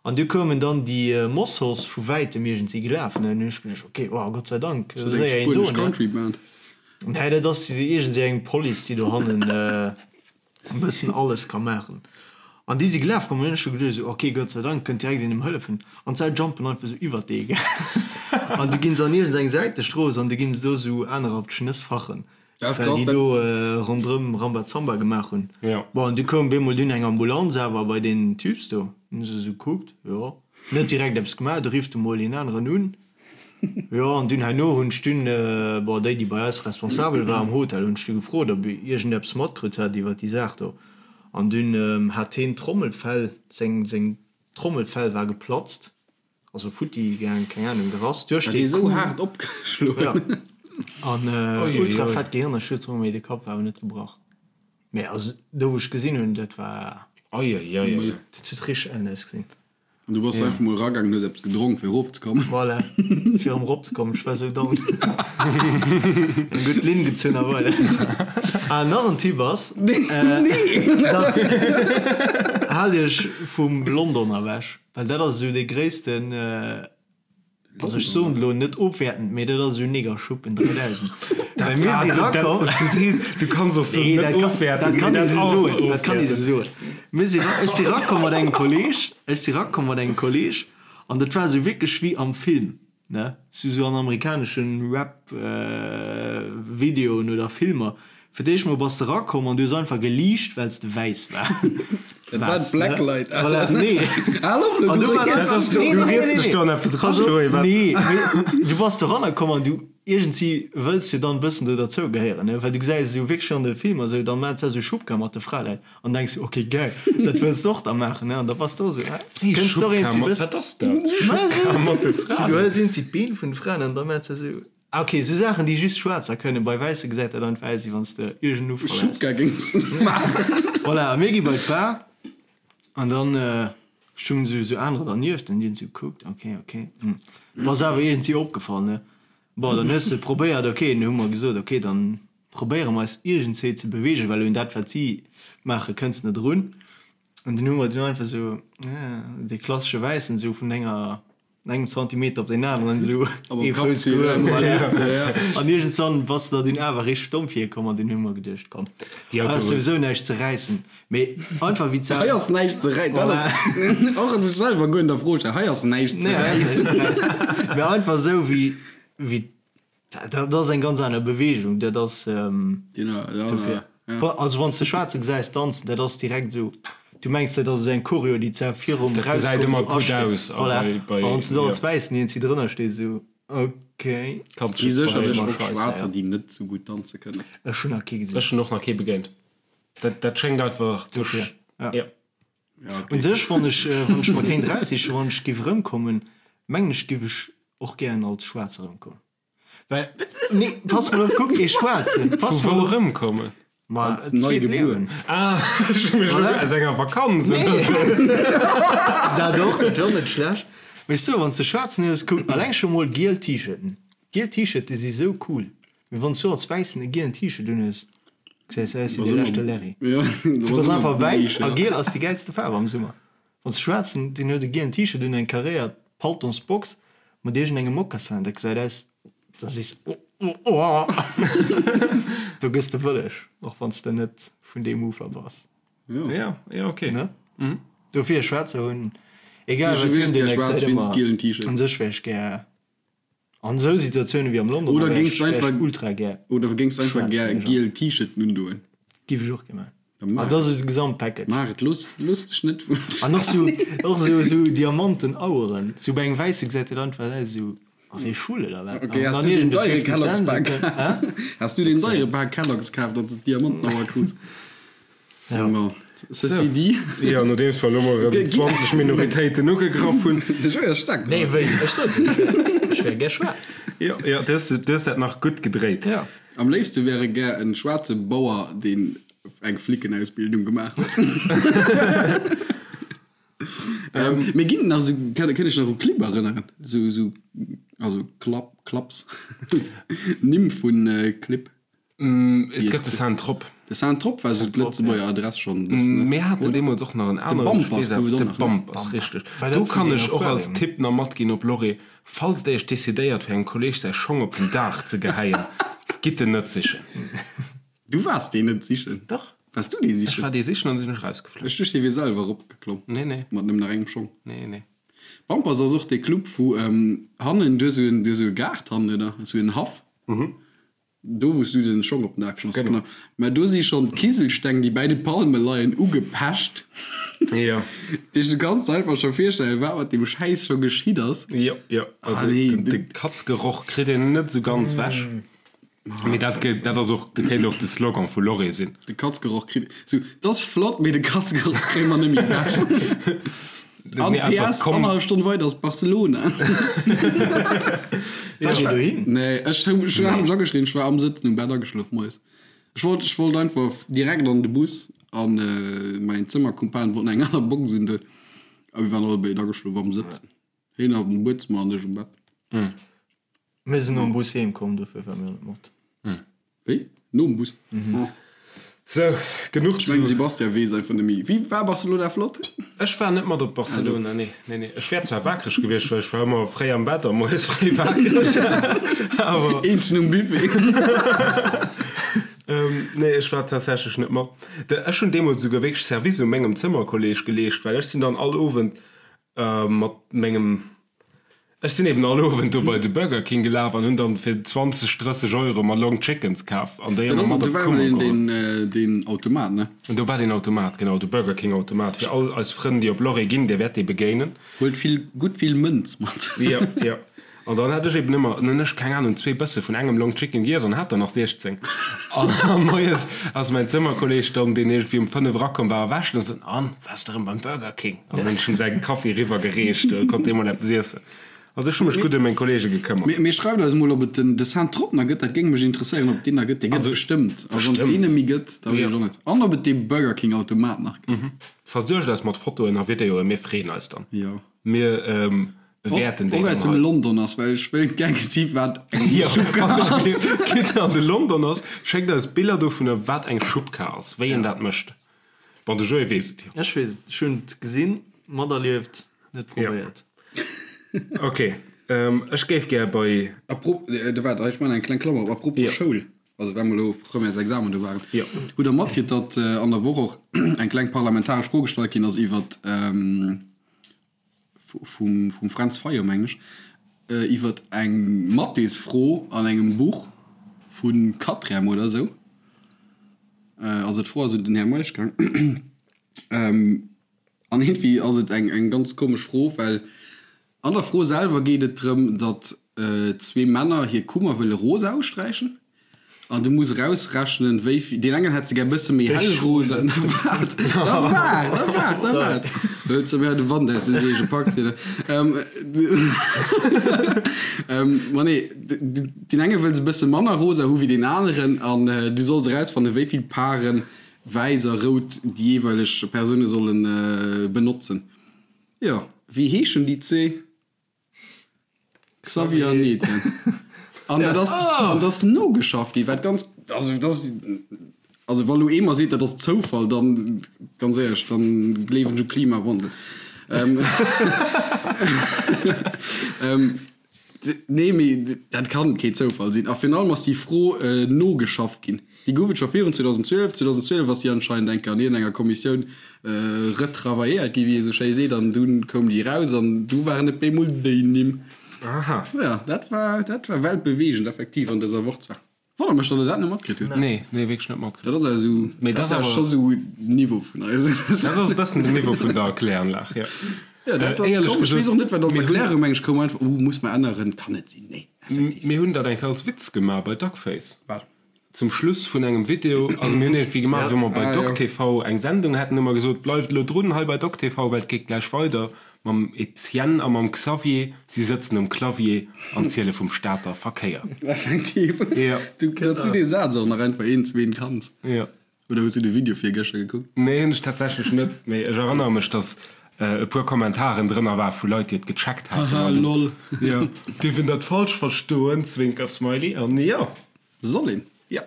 An du koumen dann déi Mossos vu wäitem iergendwéi gelaf, ne, an hunn ech geduecht, ok, oh Gott sei Dank, Ass dat eng séier een do, spuenesch ne. Country Band? Nee, dat ass iergendwéi eng Police, déi dohannen e bëssen alles ka maachen. An déi si gelaf komm an hunn ech scho geduecht esou, ok, Gott sei Dank kënnt direkt een em hëllefen. An d'Sau jumpen einfach esou iwwert dee, gell. An du ginn se an iergendeng Säitestrooss an du ginn se do esou anerer op d'Schnëss fachen. Dat ass Well krass, déi dat. do ronderëm Rambazamba gemaach hunn. Jo. Bon, an du koum bemol dunn eng Ambulanz awer bei deen Typs do. Hunn se esou gekuckt, jo, net direkt eppes gemaach. Du rifft emol een aneren un. Jo, an dunn herno hunn ech dunn, bon, déi, déi bei eis responsabel war am Hotel, hunn ech du gefrot, ob iergendeppes matkritt hat iwwer déi Saach do. An dunn hat heen d'Trommelfell, seng, seng Trommelfell war geplatzt. Also futti gaang, keng Ahnung, gerass duerch dee Coup. Esou haart opgeschloen. Ja. An ultra fett Gehirnerschütterung, mee de Kapp war awer net gebrach. Mee also do wou ech gesinn hunn, dat war. Ei ei ei ei. Dat huet richteg ellen ausgesinn. An du bass einfach mol eragaangen, hues eppes gedronk fir erofzekommen. Voilà, fir erëm eropzekommen. Ech war esou down. Eng gutt Linn gezunn a voilà. Ah, nach en Tipp ass, da haalt iech vum London ewech, well dat ass esou dee gréissten, also ech soen et elo net ofwäertend, mee dat ass esou Negerschuppen 3000. Well mir si erakomm. Du sees, du kanns och soen net ofwäertend, mee dat ass ofwäertend. Dat kann ee sou soen. Mir si, ech si rakomm mat engem Kolleg, ech si rakomm mat engem Kolleg an dat war esou wierklech wéi am Film, ne, sou sou an amerikaneschen Rap Videoen oder Filmer. Fir d'éischt mol bass de rakomm an du hues einfach geliicht well s de wäiss war Dat war waars, ne? d'Blacklight. Voilà, nee. Hal op elo, An du du war rieds einfach, dech do. nee, Du nee, nee, rieds nee, dech do an eppes pass eran, op, Joé, wat? nee, mee du bass doranner komm an du, iergendwéi wëlls jo dann e bëssen do derzou gehéieren, ne, well du gesäis esou wierklech an de Filmer esou, dann maachen se esou Schubka mat de Fraleit. An denks du, ok geil, dat wëlls de och da maachen, ne? An da bass de och esou, ah, kënns de och eens Schubka, bëssen. wat ass dat? Schubka mat de Fraen? Du hëls eens d'Been vun de Fraen an da maachts de esou, ah ok, esou Saachen déi just Schwaarzer kënnen, bei Wäisse gesäit dat einfach aus wéi wann s de iergend Ufall häss. Schubka géings de maachen. Voilà, a mir gi bei d'Bar an dann stungen esou esou anerer dernieft an déi hunn esou gekuckt, ok, ok, hm, bass awer iergendwéi opgefall, ne? Bon, dann hues de probéiert, ok, dann hu mer gesot, ok, dann probéiere mer eis iergendswéi ze beweegen, well un dat wat si maache kënns net erun. An dunn hu mer dunn einfach esou dee klassesche Wäissen esou vun enger engem Zantimeter op deen aneren esou ee Fouss gehuel, voilà. An iergendswann bass de der dunn awer richteg domm virkomm an dunn hu mer geduecht, komm, hei ass souwisou näischt ze räissen. Mee einfach wéi ze. Hei ass näischt ze räissen, dat ass och sech selwer guer an der Fro stellen, hei ass näischt ze räissen. Mee einfach esou wéi wéi Dat ass eng ganz aner Beweegung, dat ass dofir. Also wann s de Schwaarze gesäis danzen, dat ass direkt esou, du mengs dat ass esou eng Choreo, déi zwar virum Dat gesäit Erausgoen ëmmer esou gutt asteet. aus a Voilà. bei, bei, A wann s de do jo. als Wäissen iergendwéi drënner stees, esou ok. Kanns Gi just sécherlech verléieren. och Schwaarzer, déi net sou gutt danze kënnen. Ech hunn nach kee gesinn. Ech hunn och nach kee begéint. Dat, dat schéngt einfach duerch, Dofir, ja. jo. Ja, ok. Un sech, wann ech, wann ech mer kéint eraussichen, wann ech géif erëmkommen, mengen ech, géif ech och gären als Schwaarzer erëmkommen. Well, nee, pass mol op, kuck, ee Schwaarzen, pass Vu mol wou op. erëmkommen? Ma Als nei zweet gebuer. Liewen. Ah, ech hu mech elo Voilà. aus enger Vakanz Nee. oder sou. Dat och, dat wär och net schlecht. Mee ech soen, wann s de Schwaarzen hues, kuck, alleng scho mol giel T-Shirten. Giel T-Shirte si sou cool. Mee wann s du als Wäissen e gielen T-Shirt unhues, gesäis du aus wéi de leschte Larry. Ja, Du bass einfach wäiss a giel ass déi gäilste Faarf am Summer. Wann s de Schwaarzen, deen huet e gielen T-Shirt un, eng karéiert Paltonsbox mat iergendengem Mocassin, dat gesäit aus, da sees de, oh, oh, oh, do gëss de wëlleg, och wann s de net vun deem Ufer bass. Ja, ja, ok. Ne? Dofir, Schwaarzer hunn, egal wat hunn, deen gesäit ëmmer, un sech wär ech gär an esou Situatiounen wéi am London, Oder wär géings ech, du wär ech einfach, ultra gär oder géings du einfach schwaarz gär Manager. giel T-Shirten undoen? Giff ech och gär maachen. Da maach Ah, dat ass esou de Gesamtpackage. Maach et, looss, looss dech net vun. An och sou, och sou, sou Diamanten Aueren. Sou bei engem Wäisse gesäit dat einfach aus esou, ass hie schwul oder wat? Okay, An has dann du den iergend e deiere 50 Kellogg's Cent, Pak? sou, hä? Has du den deiere Pak Kellogg's kaf, datt s de d'Diamantenauer krus? Ja. Bon, ceci dit. Jo, nodeems mer elo mol erëm 20 Minoritéiten ugegraff hunn. De Joé ass staark Nee, dran. wéi? Ech sot et, ech wär, ech wär gär schwaarz. Jo, jo, du hues, du hues dat nach gutt gedréit. Ja. Am léifste wär e gär en schwaarze Bauer, deen eng Flickenausbildung gemaach huet. Mee ginn et nach esou, kann kënnt Iech nach u Clibb erënneren? Esou, esou, also Klapp, Klaps, Nimm vun Clibb. Et gëtt de Saint-Trope. De Saint-Trope war esou d'Lëtzebuerger Adress schonn e bëssen, ne? Mir haten deemools och nach en aneren. Bampers gouf et och De nach, ne? Bampers, richteg. War dat Do vun kann den ech och als Aquarium? Tipp nach matginn op Lorry, Falls der iech decidéiert fir engem Kolleeg säi Schong op den Daach ze geheien, gitt en net sichen. Du waars deen net sichen? Dach. Waars du dee sichen? Ech war dee sichen an sinn ech rausgeflunn. Ech duecht, dee wier selwer eropgeklomm. Nee, nee. Mat nëmmen nach engem Schong. Nee, nee. Bampers ass och dee Club, wou hannen, du hues esou en, du hues esou e Gaart hannen, oder? Esou en Haff. Do wous du den Schong op den Dag geschmass, genau. Mä do si schonn d'Kiselsteng déi bäi de Palme leien ugepecht. Jo. Dat heescht du kanns der einfach scho virstellen wat mat deem Schäiss scho geschitt ass. Jo, jo. Also de Katzgeroch kritt een net esou ganz wech. Mee dat gëtt, dat ass och, dat kéint och de Slogan vu Lorry sinn. De Katzgeroch kritt, sou, dat ass flott, mee de Katzgeroch kréie mer net méi wech. An Nee, einfach PS, komm. annerhallef Stonn weider ass Barcelona. Waart Dir dohin? Nee, ech hu ech hat mech ageschriwwen, ech war am Sëtzen um Bett ageschlof moies. Ech wollt, ech wollt einfach direkt an de Bus an mäin Zëmmerkumpan wollt nach eng aner Box un do. A mir waren allebéid ageschlof am Sëtzen. Hien op dem Buedzëmmer an ech um Bett. Mir sinn nom Bus heem komm, dofir war mir net mat. Wéi? Nom Bus? Sou, genuch Ech mengen, Sebastian weess einfach net méi. Wéi war Barcelona flott? Ech war net mat op Barcelona, nee, nee, nee. Ech wär zwar wakereg gewiescht, well ech war ëmmer fréi am Bett a moies fréi wakereg, awer. Eenzegen um Buffet. Nee, ech war tatsächlech net mat. Ech hunn deemools esouguer wierklech Service u mengem Zëmmerkolleeg geleescht, well ech sinn dann all Owend mat mengem Ech sinn eben all Owend do bei de Burger King gelaf an hunn dann fir 20, 30 Euro mer Long Chickens kaf an déi ëmmer mat op d'Kummer geholl. Deen Automat, ne? Do war deen Automat, genau, de Burger King Automat. Fir all eis Frënn, déi op Lorry ginn, dir wäert dee begéinen. Huelt vill, gutt vill Mënz mat. Jo, jo. An dann hat ech eben ëmmer, dann hunn ech, keng Ahnung, zwee Bësse vun engem Long Chicken giess an hat der nach 16. An moies ass mäin Zëmmerkolleg dann, deen iergendwéi um 5 erakomm war, erwächt an sot, An, waars de erëm beim Burger King? An dann hunn ech him säi Kaffi eriwwer gereecht, da konnt dee mol eppes iessen. Also ech hu mech gutt ëm meng Kollege gekëmmert. Mee schreift eis emol, ob et den de Saint Trot nach gëtt, dat géing mech interesséieren, ob et deen nach gëtt. Dee gëtt et bestëmmt. A wann et deen net méi gëtt, da weess ech och net. An ob et dee Burger King Automat nach gëtt. Versuergt eis mat Fotoen a Videoen, mir freeën eis dann. Jo. Mir bewäerten déi Och dann aus dem hei. London ass, well ech wéilt gär gesi wat eng Jo, Schubkar wann ass. Dir an de London ass, schéckt eis Biller dovunner, wat eng Schubkar ass, wéi een dat mécht. Bon, de Joé weess et jo. Ech weess et, ech hunn et gesinn, materlieft, net probéiert. Ok, ech géif gär bei. Apropos, waart, ech maachen eng kleng Klammer op, apropos Jo. Schoul, also well mer elo Premièresexamen do waren, Jo. hutt Der matkritt, datt an der Woch och eng kleng parlamentaresch Fro gestallt ginn ass iwwert, vum Fränz Fayot, mengen ech, iwwert eng Mathésfro an engem Buch vu Quatrième oder esou. Also d'Fro ass un den Här Meisch gaang. An iergendwéi ass et eng ganz komesch Fro, well an der Fro selwer geet et drëm, datt zwee Männer hir Kummer wëlle rosa usträichen. An du muss erausrechnen, wéi vill. Deen engen hätt se gär bësse méi hell rosa. Da waart, da waart, da waart, da waart. Huet se mir de Wand aus de Seege packt hier. Ma nee, deen enge wëll se bësse manner rosa hu wéi deen aneren. An du solls erausfannen, wéi vill Paren wäiss a rout déi jeeweileg Persoune solle benotzen. Jo, wéi heeschen déi zwee? Xavier an Etienne. An dat ass, an dat ass nogeschafft ginn, wat ganz, also dat ass, also wa lo ee mer seet, dat ass Zoufall, dann, ganz éierlech, dann gleewen ech u Klimawandel. Nee, mee dat kann kee Zoufall sinn. A virun allem ass déi Fro nogeschafft ginn. Déi gouf et scho virun 2012. 2012 ass déi anscheinend eng Kéier an iergendenger Kommissioun retravailléiert ginn, wéi ee sou schéi seet, an dunn koum déi eraus an du waren et bemol déi Nimm. Aha. Jo, dat war, dat war weltbeweegend effektiv an dëser Woch zwar. Wonnert mech, datt Der dat net matkritt hutt. Nee, nee, wierklech net matkritt. Dat ass awer esou, Mee dat dat ass awer awer- scho sou Niveau vun eis. Dat ass e bëssen den Niveau vun der Erkläranlag, jo. Ja, dat ass Éierlech komesch. Ech gesot, weess och net, wat als mir hunn- Erklärung, meng ech, koum einfach, uh, muss mer änneren, kann net sinn, nee, effektiv. Mir hunn dat eng Kéier als Witz gemaach bei Duckface. Wat? Zum Schluss vun engem Video, also mir hunn iergendwéi gemaach, wéi mer bei Ah, jo. DocTV eng Sendung haten, hu mer gesot, bleift elo drun hei bei DocTV, well et geet gläich weider mam Etienne a mam Xavier. Si sëtzen um Clavier an ziele vum Stater Verkéier. Effektiv. Jo. Du, datt du dee Saz och nach einfach een, zween kanns. Jo. Oder hues du de Video virgëschter gekuckt? Nee, hunn ech tatsächlech net, mee ech erënnere mech, datt e puer Kommentaren drënner war vu Leit, déi et gecheckt haten. Haha, lol. Jo, dierf een dat falsch verstoen? Zwinker-Smiley. An jo. Soll een. Jo.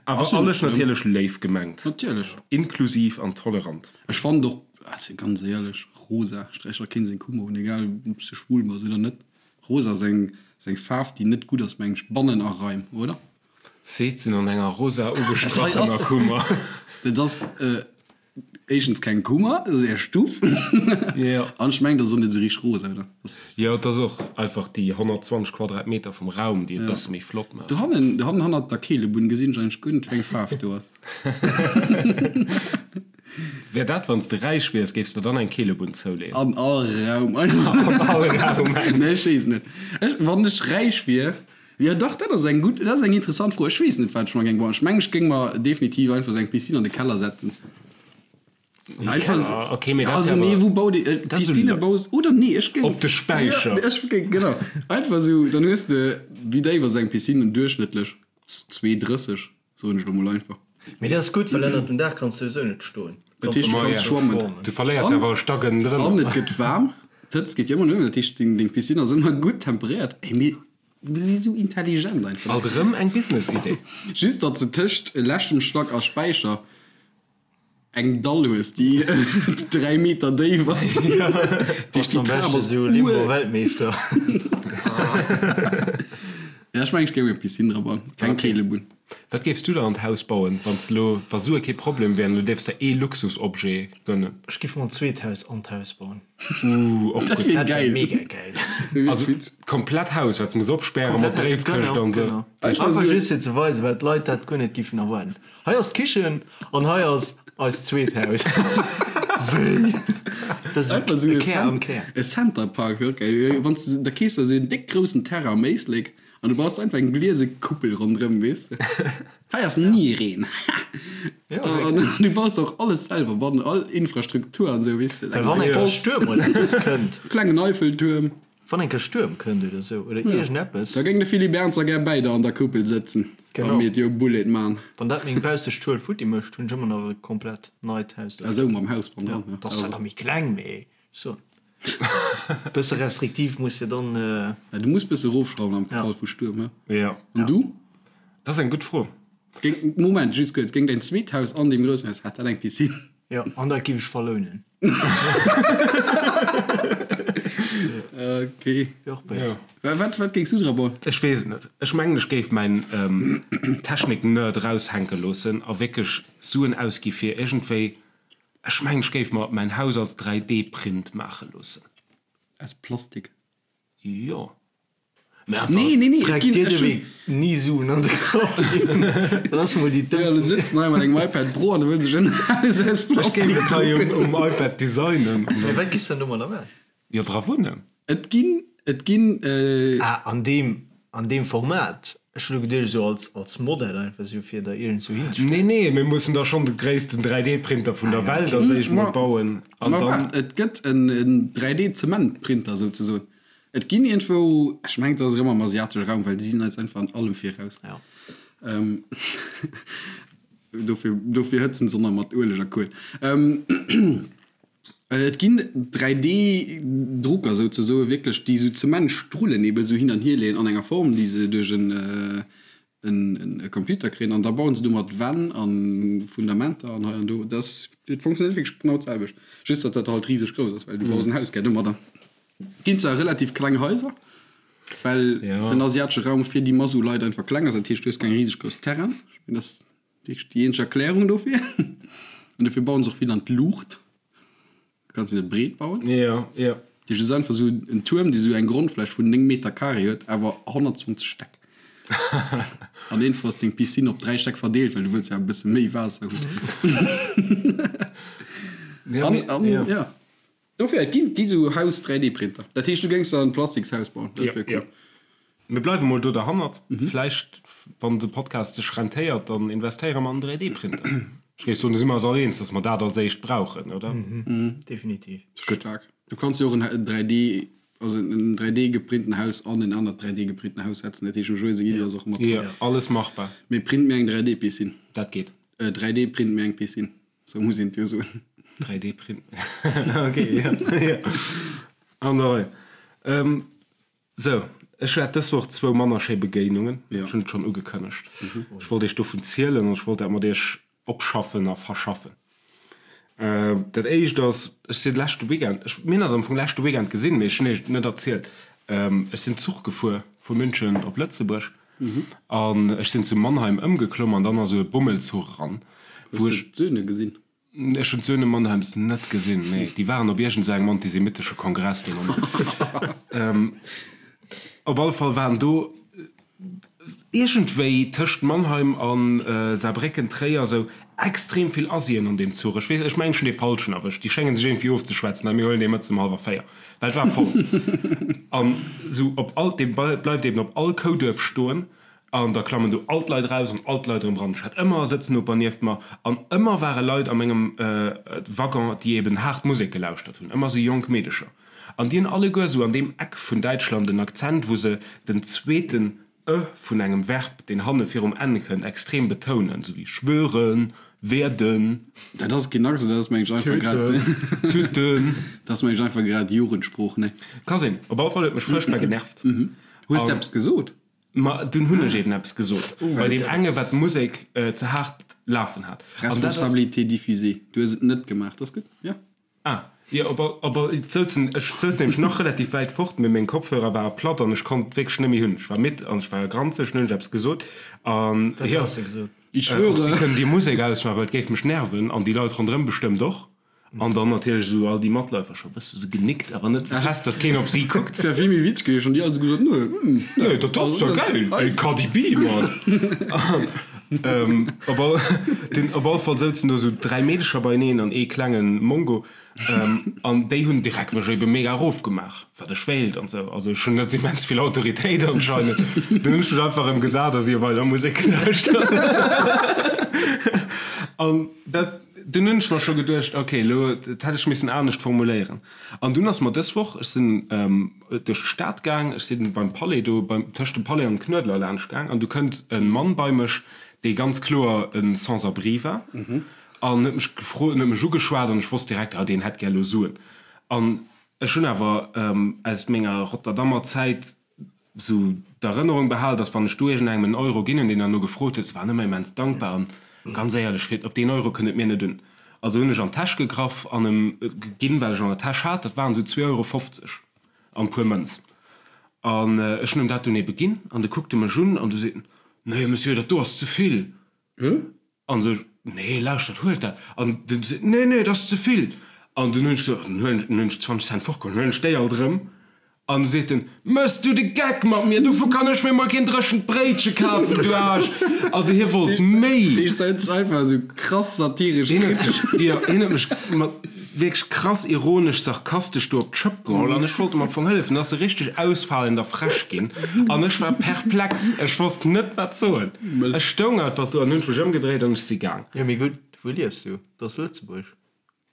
Awer Ass jo net alles schlëmm. natierlech léif gemengt. Natierlech. Inklusiv an tolerant. Ech fannen och, also ganz éierlech, rosa sträicht der keen seng Kummer un, egal ob s de schwul bass oder net. Rosa ass eng, ass eng Faarf, déi net gutt ass, meng ech, bannen a Raim, oder? Seet se an enger rosa Dat hei ugestrachener ass, Kummer. dat ass éischtens keng Kummer, dat ass är Stuff. Jo. An ech mengen, dat ass och net esou richteg rosa, oder? Dat Jo, et ass och einfach déi 120 Quadratmeter vum Raum, déi et e bësse méi flott maachen. Dohannen, dohannen hannert der Keelebunn gesinn ech eigentlech guer net, wéi eng Faarf do ass. Wär dat, wann s de räich wiers, géifs de dann eng Keelebunn zouleeën? An all Raum einfach. An all Raum eng. Nee, ech weess net. Ech, wann ech räich wier, jo dach, dat ass eng gutt, dat ass eng interessant Fro. Ech weess net, wat ech mer géing bauen. Ech mengen, ech géing mer definitiv einfach esou eng Piscine an de Keller setzen. Einfach okay, mee dat ass also jo nee, awer wou bau de äh, Dat ass Piscine esou baus oder nee, ech géing Op de Späicher. Ja, ech géing genau. Einfach esou, dann hues de wéi déif ass eng Piscine duerchschnëttlech? 2,30 soen ech lo mol einfach. Mee dat ass gutt, well ënnert dem Daach kanns de souwisou net stoen. Dat heescht, du Ma kanns ja. schwammen. Du verléiers jo An awer e Stack ënnendrënner. an et gëtt waarm, d'Hëtzt geet jo ëmmer no uewen, dat heescht deng deng Piscine ass ëmmer gutt temperéiert. Ey, mir mir si sou intelligent einfach. Alt erëm eng Business-Idee. Just datt se tëscht leschtem Stack a Späicher eng Dall hues déi 3 Meter déif ass. Bass am beschten esou Limbo-Weltmeeschter. Ja ech mengen ech géing eng Piscine dra bauen, keng Keelebunn. Wat géifs du der an d'Haus bauen, wann s elo, wa Sue kee Problem wären, du dierfs der ee Luxusobjet gönnen? Ech giff mer en zweet Haus an d'Haus bauen. Ooh, och Dat gutt. wier Dat wär geil. mega geil. Also komplett Haus, wat s muss opspären mat Bréifkëscht an esou. Genau. Einfach Einfach esou. just fir ze weisen, well d'Leit dat guer net giffen erwaarden. Hei ass d'Kichen an hei ass eist zweet Haus. Wéi? Dat ass Einfach esou e e Kär am Cent Kär. e Center Park wier och geil. Wann s de da kees der esou en déck groussen Terrain am Éislek an du baus einfach eng gliese Kuppel ronderëm, weess de. Hei ass ni Reen. Ja, An wierklech. du baus och alles selwer bannen, all Infrastruktur an esou, weess de. Well wann Eng eng Kéier Post, Stuerm oder eppes kënnt. klengen Eiffeltuerm. Wann eng Kéier Stuerm kënnt oder esou oder iergendeppes. Da géing de Philippe Ernzer gär bäi der an der Kuppel sëtzen a Genau. mir d'Jo Bullet man. Wann dat meng baussecht Schuel futti mécht, hunn ech ëmmer nach e komplett neit Haus Ah sou, mam Haus bannendran, Ja, ja. dat ass zwar da méi kleng, mee so bësse restriktiv muss jo dann. Ja, du muss bësse rofschrauwen am Ja. Fall vu Stuerm, he? Ja. An du? Dat ass eng gutt Fro. Géing, Moment, just kuerz, géing däin zweet Haus an deem groussen Haus, hätt dat eng Piscine? Jo, an dat giff ech verlounen. Ok. Wier och béis. Wat, wat géings du dra bauen? Ech weess et net. Ech mengen, ech géif mäin Technik-Nerd eraushänke loossen a wierklech Suen ausgi fir iergendwéi, ech mengen, ech géif mer mäin Haus als 3D-Print maache loossen. Aus Plastik? Jo. Mä einfach. Nee, nee, nee, et Freck ginn, dir ech de hunn. Wee ni Suen an de Kapp ginn. Dat ass mol déi Ja, du dëmmsten. sëtzt hei mat engem iPad Pro an du wëlls sech en Haus aus Ech géif Plastik et hei um, drucken. um iPad designen. An Mä dann, wat giss de dann domadder maachen? jo, dra wunnen. Et ginn, et ginn. Ah, an deem, an deem Format. Ech hunn elo geduecht esou als, als Modell einfach esou fir der iergendzou hinzestellen. Nee, nee, mir mussen da schonn de gréissten 3D-Printer vun der Welt als éischt mol bauen. An Ma dann. waart, et gëtt en 3D-Zementprinter souzesoen. Et ginn iergendwou, ech mengen et ass erëm am asiatesche Raum, well déi sinn eis einfach an allem viraus. Ja. Dofir, dofir hëtzen se och nach mat Ueleg a Kuel. Et ginn 3D-Drucker souzesoe wierklech, déi esou Zementstrullen ebe sou hin an hier leeën an enger Form, déi se duerch en e Computer kréien an da bauen se domat Wänn a Fundamenter an hei an do. Dat ass, et funktionéiert wierklech genau d'selwecht, just datt dat halt riseg grouss ass, well du baus en Haus gär domadder. Ginn zwar relativ kleng Haiser, well den asiatesche Raum fir déi Mass u Leit einfach kleng ass, dat heescht du hues keng riseg grouss Terrainen. Ech mengen, dat ass wierklech déi eenzeg Erklärung dofir. An dofir bauen se och vill an d'Luucht. Kanns du net breet bauen. Ja, ja. Dat heescht, et ass einfach esou en Tuerm, dee sou eng Grondfläch vun 9 Meter carré huet, awer 120 Stäck. An eenfach ass deng Piscine op 3 Stäck verdeelt, well du wëlls ja e bësse méi Waasser hunn. Ja, An, mee, an, ja. ja. Dofir, et ginn, gi sou Haus-3D-Printer. Dat heescht, du géings der en Plastikshaus bauen. Dat Ja, wär ja. cool. Mir bleiwe mol do derhannert. Vläicht, wann de Podcast sech rentéiert, dann investéiere mer an en 3D-Printer. Ech géif soen, do si mer eis all eens, dass mer dat als éischt brauchen, oder? Definitiv. Staark. Du kanns jo och en 3D, also en 3D geprinten Haus an en anert 3D geprinten Haus setzen. Dat heescht, dem Joé seng Iddi ass och mat dran. Jo, alles machbar. Mee print mir eng 3D-Piscine. Dat geet. 3D print mir eng Piscine. Sou muss een et jo soen. 3D print. Ok, jo, jo. An der Rei. Sou, ech hat dës Woch zwou manner schéi Begéinungen. Ech hunn et schonn ugekënnegt. Ech wollt iech dovun zielen an ech wollt dat mat iech opschaffen a verschaffen. Dat éischt ass, ech sinn leschte Weekend, ech, mir hunn eis am Fong leschte Weekend gesinn, mee ech hunn iech et net erzielt, ech sinn Zuch gefuer vu München op Lëtzebuerg an ech sinn zu Mannheim ëmgeklomm an dann ass esou e Bummelzuch eran, wou Hues ech. de d'Söhne gesinn? Ech hunn d'Söhne Mannheims net gesinn, nee. Déi waren op iergend esou engem antisemitesche Kongress dee Moment. Op alle Fall waren do iergendwéi tëscht Mannheim a Saarbrécken, Tréier esou extrem vill Asien an deem Zuch. Ech weess, ech mengen ech hunn dee falschen erwëscht. Déi schénge sech iergendwéi ofzeschwätzen, hei mir huelen dee mëttes ëm hallwer 4, well et war voll. An esou op all, dee bleift eben op all Kouduerf stoen. An da klammen do all d'Leit eraus an all d'Leit erëm eran. Ech hat ëmmer e Sëtznoper nieft mer an ëmmer ware Leit a mengem Waggon, déi eben haart Musek gelauschtert hunn, ëmmer esou jonk Meedecher. An déi hunn alleguer esou an deem Eck vun Däitschland en Akzent, wou se den zweeten e vun engem Verb, deen hanne virum n kënnt, extrem betounen, esou wéi schwören, werden. Dat ass keen Accent, dat ass mengen ech einfach grad. Tüten. Dat ass mengen ech einfach grad Jugendsprooch, ne? Ka sinn. Op alle Fall huet mech fuerchtbar genervt. Hues de eppes gesot? Ma dunn hunn ech eben eppes gesot, bei deem enge wat d'Musek ze haart lafen hat. Responsabilité diffusée, du hues et net gemaach, dat ass gutt, jo. Ah, jo, op all, op all, et souzen, ech souz nämlech nach relativ wäit fort, mee meng Kopfhörer ware platt an ech konnt wierklech net méi hunn. Ech war midd an ech war granzeg, dunn hunn ech eppes gesot an, jo, Ich schwöre. Si kënnen déi Musek ausmaachen, well et géif mech nerven an déi Leit ronderëm bestëmmt och. An dann natierlech esou all déi Matläufer scho bësse sou genickt, awer net ze fest, dass keen op si kuckt. Wär vill méi witzeg gewiescht, wann déi all esou gesot nö, hm, nö. Nee, dat ass jo geil, ey, Cardi B, Mann! Op all, den, op alle Fall souzen do esou 3 Meedecher beieneen an ee klengen Mongo, an déi hunn direkt mech ebe mega erofgemaach, wat ech wéilt an esou. Also ech hunn net immens vill Autoritéit anscheinend. Dunn hunn ech mech einfach erëm gesat a si hu weider Musek gelauschtert. An dat. Dunn hunn ech mer scho geduecht, ok, elo, dat hätt ech missen anescht formuléieren. An dunn ass mer dës Woch, ech sinn duerch d'Stad gaang, ech sinn beim Palais do, beim, tëscht dem Palais an dem Knuedler laanscht gaang, an du kënnt e Mann bei mech, dee ganz kloer e Sans-abri war, an huet mech gefrot, huet mech ugeschwat, an ech wosst direkt, ah, deen hätt gär elo Suen. An ech hunn awer aus menger Rotterdammer Zäit sou d'Erënnerung behal, dass wann ech do iergendengem en Euro ginn hunn, deen derno gefrot huet, se waren ëmmer immens dankbar an ganz éierlech, fir op deen Euro kënnt et mir net un. Also hunn ech an d'Täsch gegraff an em ginn, wat ech an der Täsch hat, dat waren sou 2,50 Euro an e puer Mënz. An ech hunn em dat dunn ebe ginn an du kuckt e mech un an du seet en, Nee, Monsieur, dat do ass ze vill. An sou ech, Nee, lauschtert, huelt dat. An dunn seet en, Nee, nee, dat ass ze vill. An dunn hunn ech gesot, Dann huelen ech, dann hunn ech 20 Cent fortgeholl, dann huelen ech déi alt erëm. An du seet en, Méchs du de Geck mat mir? Dovu kann ech mir mol keen dréchent Bréitche kafen, du Aarsch! Also hie wollt méi. Dee huet sech einfach esou krass satiresch. Hien huet sech, jo, hien huet mech mat wierklech krass ironesch, sarkastesch do op d'Schëpp geholl an ech wollt em am Fong hëllefen. Da ass e richteg ausfalend a frech ginn an ech war perplex. Ech wosst net, wat soen. Ech stoung einfach do an hunn mech ëmgedréit an ech si gaang. Jo, mee gutt, wou liefs du? Dat ass Lëtzebuerg.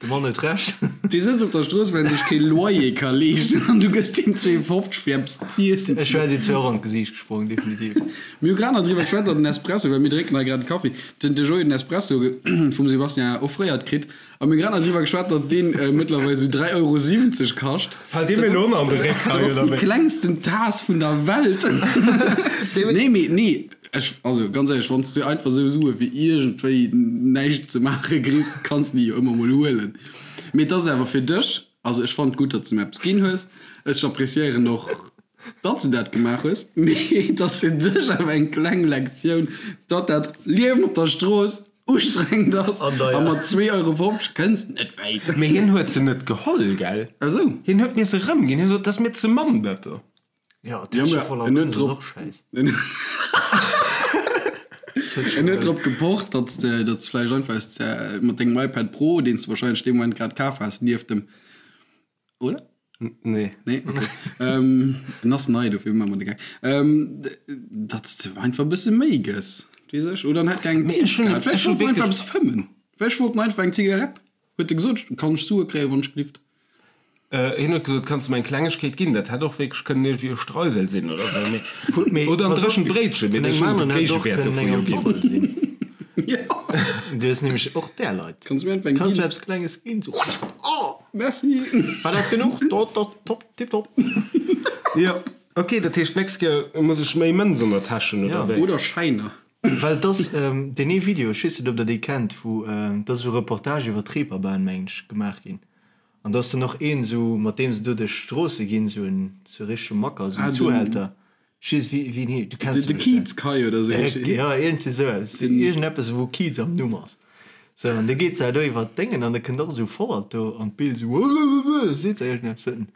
De Mann huet Recht. Dee sëtzt op der Strooss, well en sech kee Loyer ka leeschten an du gëss deem 2,50 fir eppes z'iessen. Ech wär dir zwar och an d'Gesiicht gesprong, definitiv. Mir hu grad nach driwwer geschwat, datt den Espresso, well mir drénken hei grad e Kaffi, den de Joé den Espresso vum Sébastien offréiert kritt a mir hu grad nach driwwer geschwat, datt deen mëttlerweil esou 3,70 Euro kascht. Fält dir mir elo an de Réck hei, oder wéi? Dat ass déi klengsten Taass vun der Welt. Nee, mee nee. Ech, also ganz éierlech, wann s de einfach esou Sue fir iergendwéi näischt ze maache kriss, kanns de déi jo ëmmer mol huelen. Mee et ass awer fir dech, also ech fannen et gutt, datt s de mir eppes ginn hues, ech appréciéieren och, datt s de dat gemaach hues, mee et ass fir dech awer eng kleng Lektioun, datt dat Liewen op der Strooss ustrengend ass a mat 2,50 Euro kënns de net wäit. Mee hien huet se net geholl, gell? Ah sou. Hien huet mir se erëmginn, hien sot, dat ass mir ze mann, dat do. Ja, Täsche voller en huet Mënz ass drop och schäiss. En huet drop gepocht, datt s de datt s vläicht einfach aus der mat dengem iPad Pro, deen s de wahrscheinlech dee Moment grad kaf has, nieft dem, oder? Nee. Nee, okay. ähm, en ass nei, dofir maache mer de Gag. Ähm, datt s de einfach e bësse méi gëss, weess ech. Oder en hätt gär eng Mee ech hunn Zigarett. Vläicht ech hu wollt en einfach wierklech. eppes fëmmen. Vläicht wollt en einfach eng Zigarett. Huet e gesot, kann ech Sue kréien, wann ech gelift? Hien huet gesot, Kanns de mer eng Klengegkeet ginn? Dat hätt och wierklech kënnen iergendwéi e Streusel sinn oder esou, mee, oder en dréchent Bréitchen, mee ech hunn de Géigewäert dovun jo ginn. Du hues nämlech och där Leit. Kanns du mir einfach eng ginn? Kanns du mir eppes Klenges ginn? So, oh, merci! War dat genuch? Top, tipptopp! Jo, ok, dat heescht, d'nächst Kéier muss ech méi Mënz an der Täsch hunn, oder wéi? Oder Schäiner. Well et ass deen ee Video, ech weess net, ob der dee kennt, wou, et ass esou e Reportage iwwer d'Reeperbahn, mengen ech, gemaach ginn. An do ass dann och een esou, mat deem se do duerch d'Stroosse ginn, esou en sou richtege Macker, esou en Zuhälter. Ech weess wéi wéi en heescht, du kenns de e bestemmt. Kiez Kai oder esou heescht deen. Jo, iergendwéi esou eppes, iergendeppes wou Kiez am Numm ass. Sou, an da geet se do iwwer d'Déngen an da kënnt och esou Vollert do an d'Bild esou, Wuuuuuh, seet se iergendeppes. Huet en,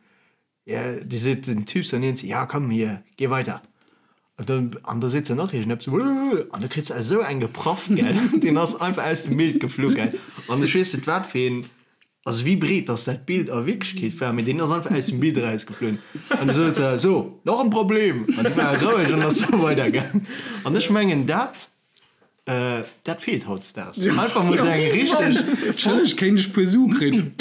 jo, déi seet den Typ dann iergendwéi, ja komm hier, geh weiter. An dann, an da seet se nach iergendeppes, Wuuuuh, an da kritt se esou eng geprafft, gell, deen ass einfach aus dem Bild geflu, gell. An ech weess net wat fir een. Also wéi breet dass dat Bild a Wierklechkeet war, mee deen ass einfach aus dem Bild erausgeflunn an du souz se, So, nach en Problem! An du war roueg an ass weider gaang. An ech mengen dat, dat feelt hautdesdaags. Einfach mol sou eng richteg. Entschëlleg, kéint ech puer Sue kréien?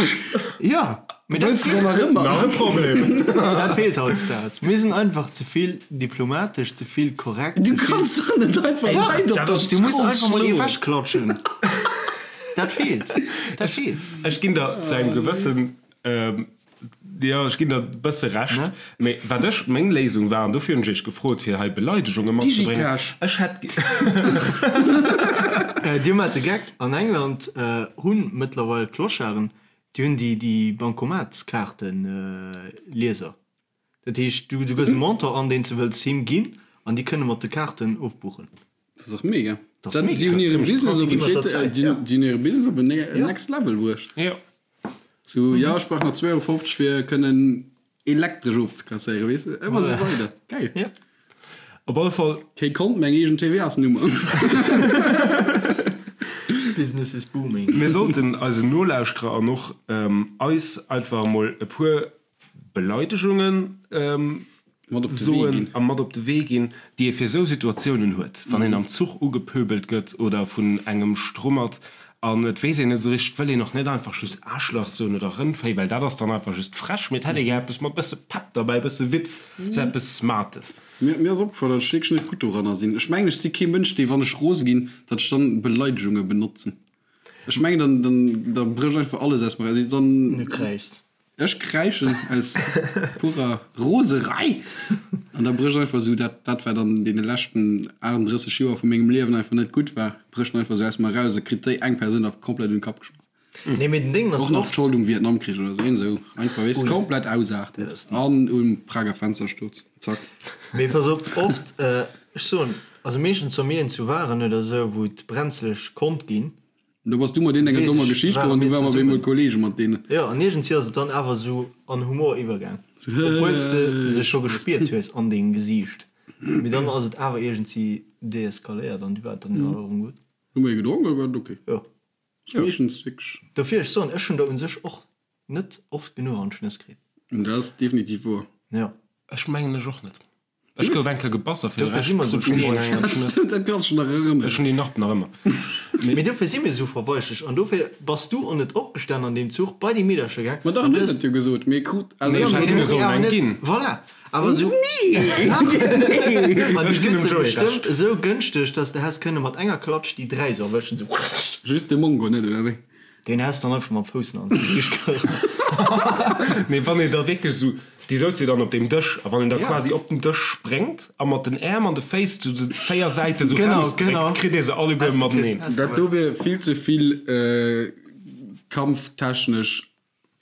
Jo, mee dat Wëlls de dann nach ëmmer? Nach e Problem! Dat feelt hautdesdaags. Mir sinn einfach ze vill diplomatesch, ze vill korrekt, Du ze vill. kanns dach net einfach Leit op der Dach, du muss Strooss einfach mol ee schloen. wechklatschen. Dat feelt, dat feelt. Ech ginn der zu engem gewëssen, jo, ech ginn der e bësse Recht, mee wat ech, meng Léisung war, an dofir hunn ech iech gefrot, fir hei Beleidegunge matzebréngen, Digitasch. ech hätt. Dir maacht de Geck, an England hu mëttlerweil d'Clocharden, déi hunn déi Bankomatskaarten-Lieser. Dat heescht, du gëss e Montant an, deen s de wëlls him ginn, an déi kënne mat de Kaarten ofbuchen. Dat ass och mega. Dat ass mega. Si hunn hire Business op en Iwwer der Zäit, ja. Si hunn hire Business op en next level bruecht. Jo. Sou, jo, ech brauch nach 2,50 Euro fir kënnen elektresch ofzekasséieren, weess de? Ëmmer sou weider. Geil. Jo. Op alle Fall. Kee Kont, mä eng eegen TVA-s-Nummer. Business is booming. Mir sollten eisen Nolauschterer an och eis einfach emol e puer Beleidegungen soen a mat op de Wee ginn, déi ee fir esou Situatiounen huet, wann een am Zuch ugepöbelt gëtt oder vun engem strummert an et weess een net esou richteg, wëll een och net einfach just Aarschlach soen oder Rëndvéi, well dat ass dann einfach just frech, mee et hätt ee gär eppes mat bësse Pepp derbäi, bësse Witz, esou eppes Smartes. Mir ass opgefall, datt ech wierklech net gutt doranner sinn. Ech mengen, ech si kee Mënsch, dee wann ech rose ginn, datt ech dann Beleidegunge benotzen. Ech mengen, dann, dann, da brécht einfach alles aus mer eraus. Dann. Du kräischs. Ech kräischen aus purer Roserei an da brécht einfach esou dat, dat wat an deene leschten 38 Joer vu mengem Liewen einfach net gutt war, brécht einfach esou aus mer eraus a kritt déi eng Persoun da komplett un de Kapp geschmass. Nee, mee den Ding ass Och nach oft. d'Schold um Vietnamkrich oder esou, esou einfach, weess de, komplett ausaarten an um Prager Fenstersturz, zack. Mee pass op, oft, ech soen, also meeschtens wa mir een zu waren oder esou, wou et brenzeleg konnt ginn, Do bass du mat deenen enger Weess dommer ech, Geschicht ware komm an du mir ware mer op zesummen. eemol Kollege mat deenen. Jo, an iergendwéi ass et dann awer esou an Humor iwwergaang, obwuel s de se scho gespiert hues an dengem Gesiicht. Mee dann ass et awer iergendwéi deeskaléiert an du war et dann awer erëm gutt. Hu mer ee gedronk oder war et ok? Jo. Ass meeschtens wierklech. Dofir, ech soen, ech hunn der un sech och net oft genuch an d'Schnëss kritt. Dat ass definitiv woer. Jo. Ech mengen ech och net. Ech gouf eng Kéier gebass a fir de Dofir si Rescht mer esou krut ech ni eng an d'Schnëss. Dat kanns du dech nach erënneren. Ech hunn déi Narb nach ëmmer. Mee dofir si mir esou verweichlecht an dofir bass du och net opgestan an deem Zuch bei déi Meedercher gaang. Ma dach, en huet dat jo gesot, mee krut also ech hätt hinne sollen eng ginn. Voilà, awer esou. Nee! An déi Ech ginn sinn dem se Joé bestëmmt Recht. esou gënschteg, dass de häss kënne mat enger Klatsch déi 3 esou erwëschen, esou. Just de Mongo net, oder wéi? Deen häss dann einfach mam Fouss an d'Gesiicht gerannt. Mee wann een da wierklech esou, déi souz jo dann op deem Dësch, a wann een da Ja. quasi op den Dësch spréngt a mat den Äerm an de Féiss zu de 4 Säiten esou Genau, rausdréckt, genau. kritt ee se alleguer Häss de kritt, mateneen. häss de Dat do wier vill ze vill kampftechnesch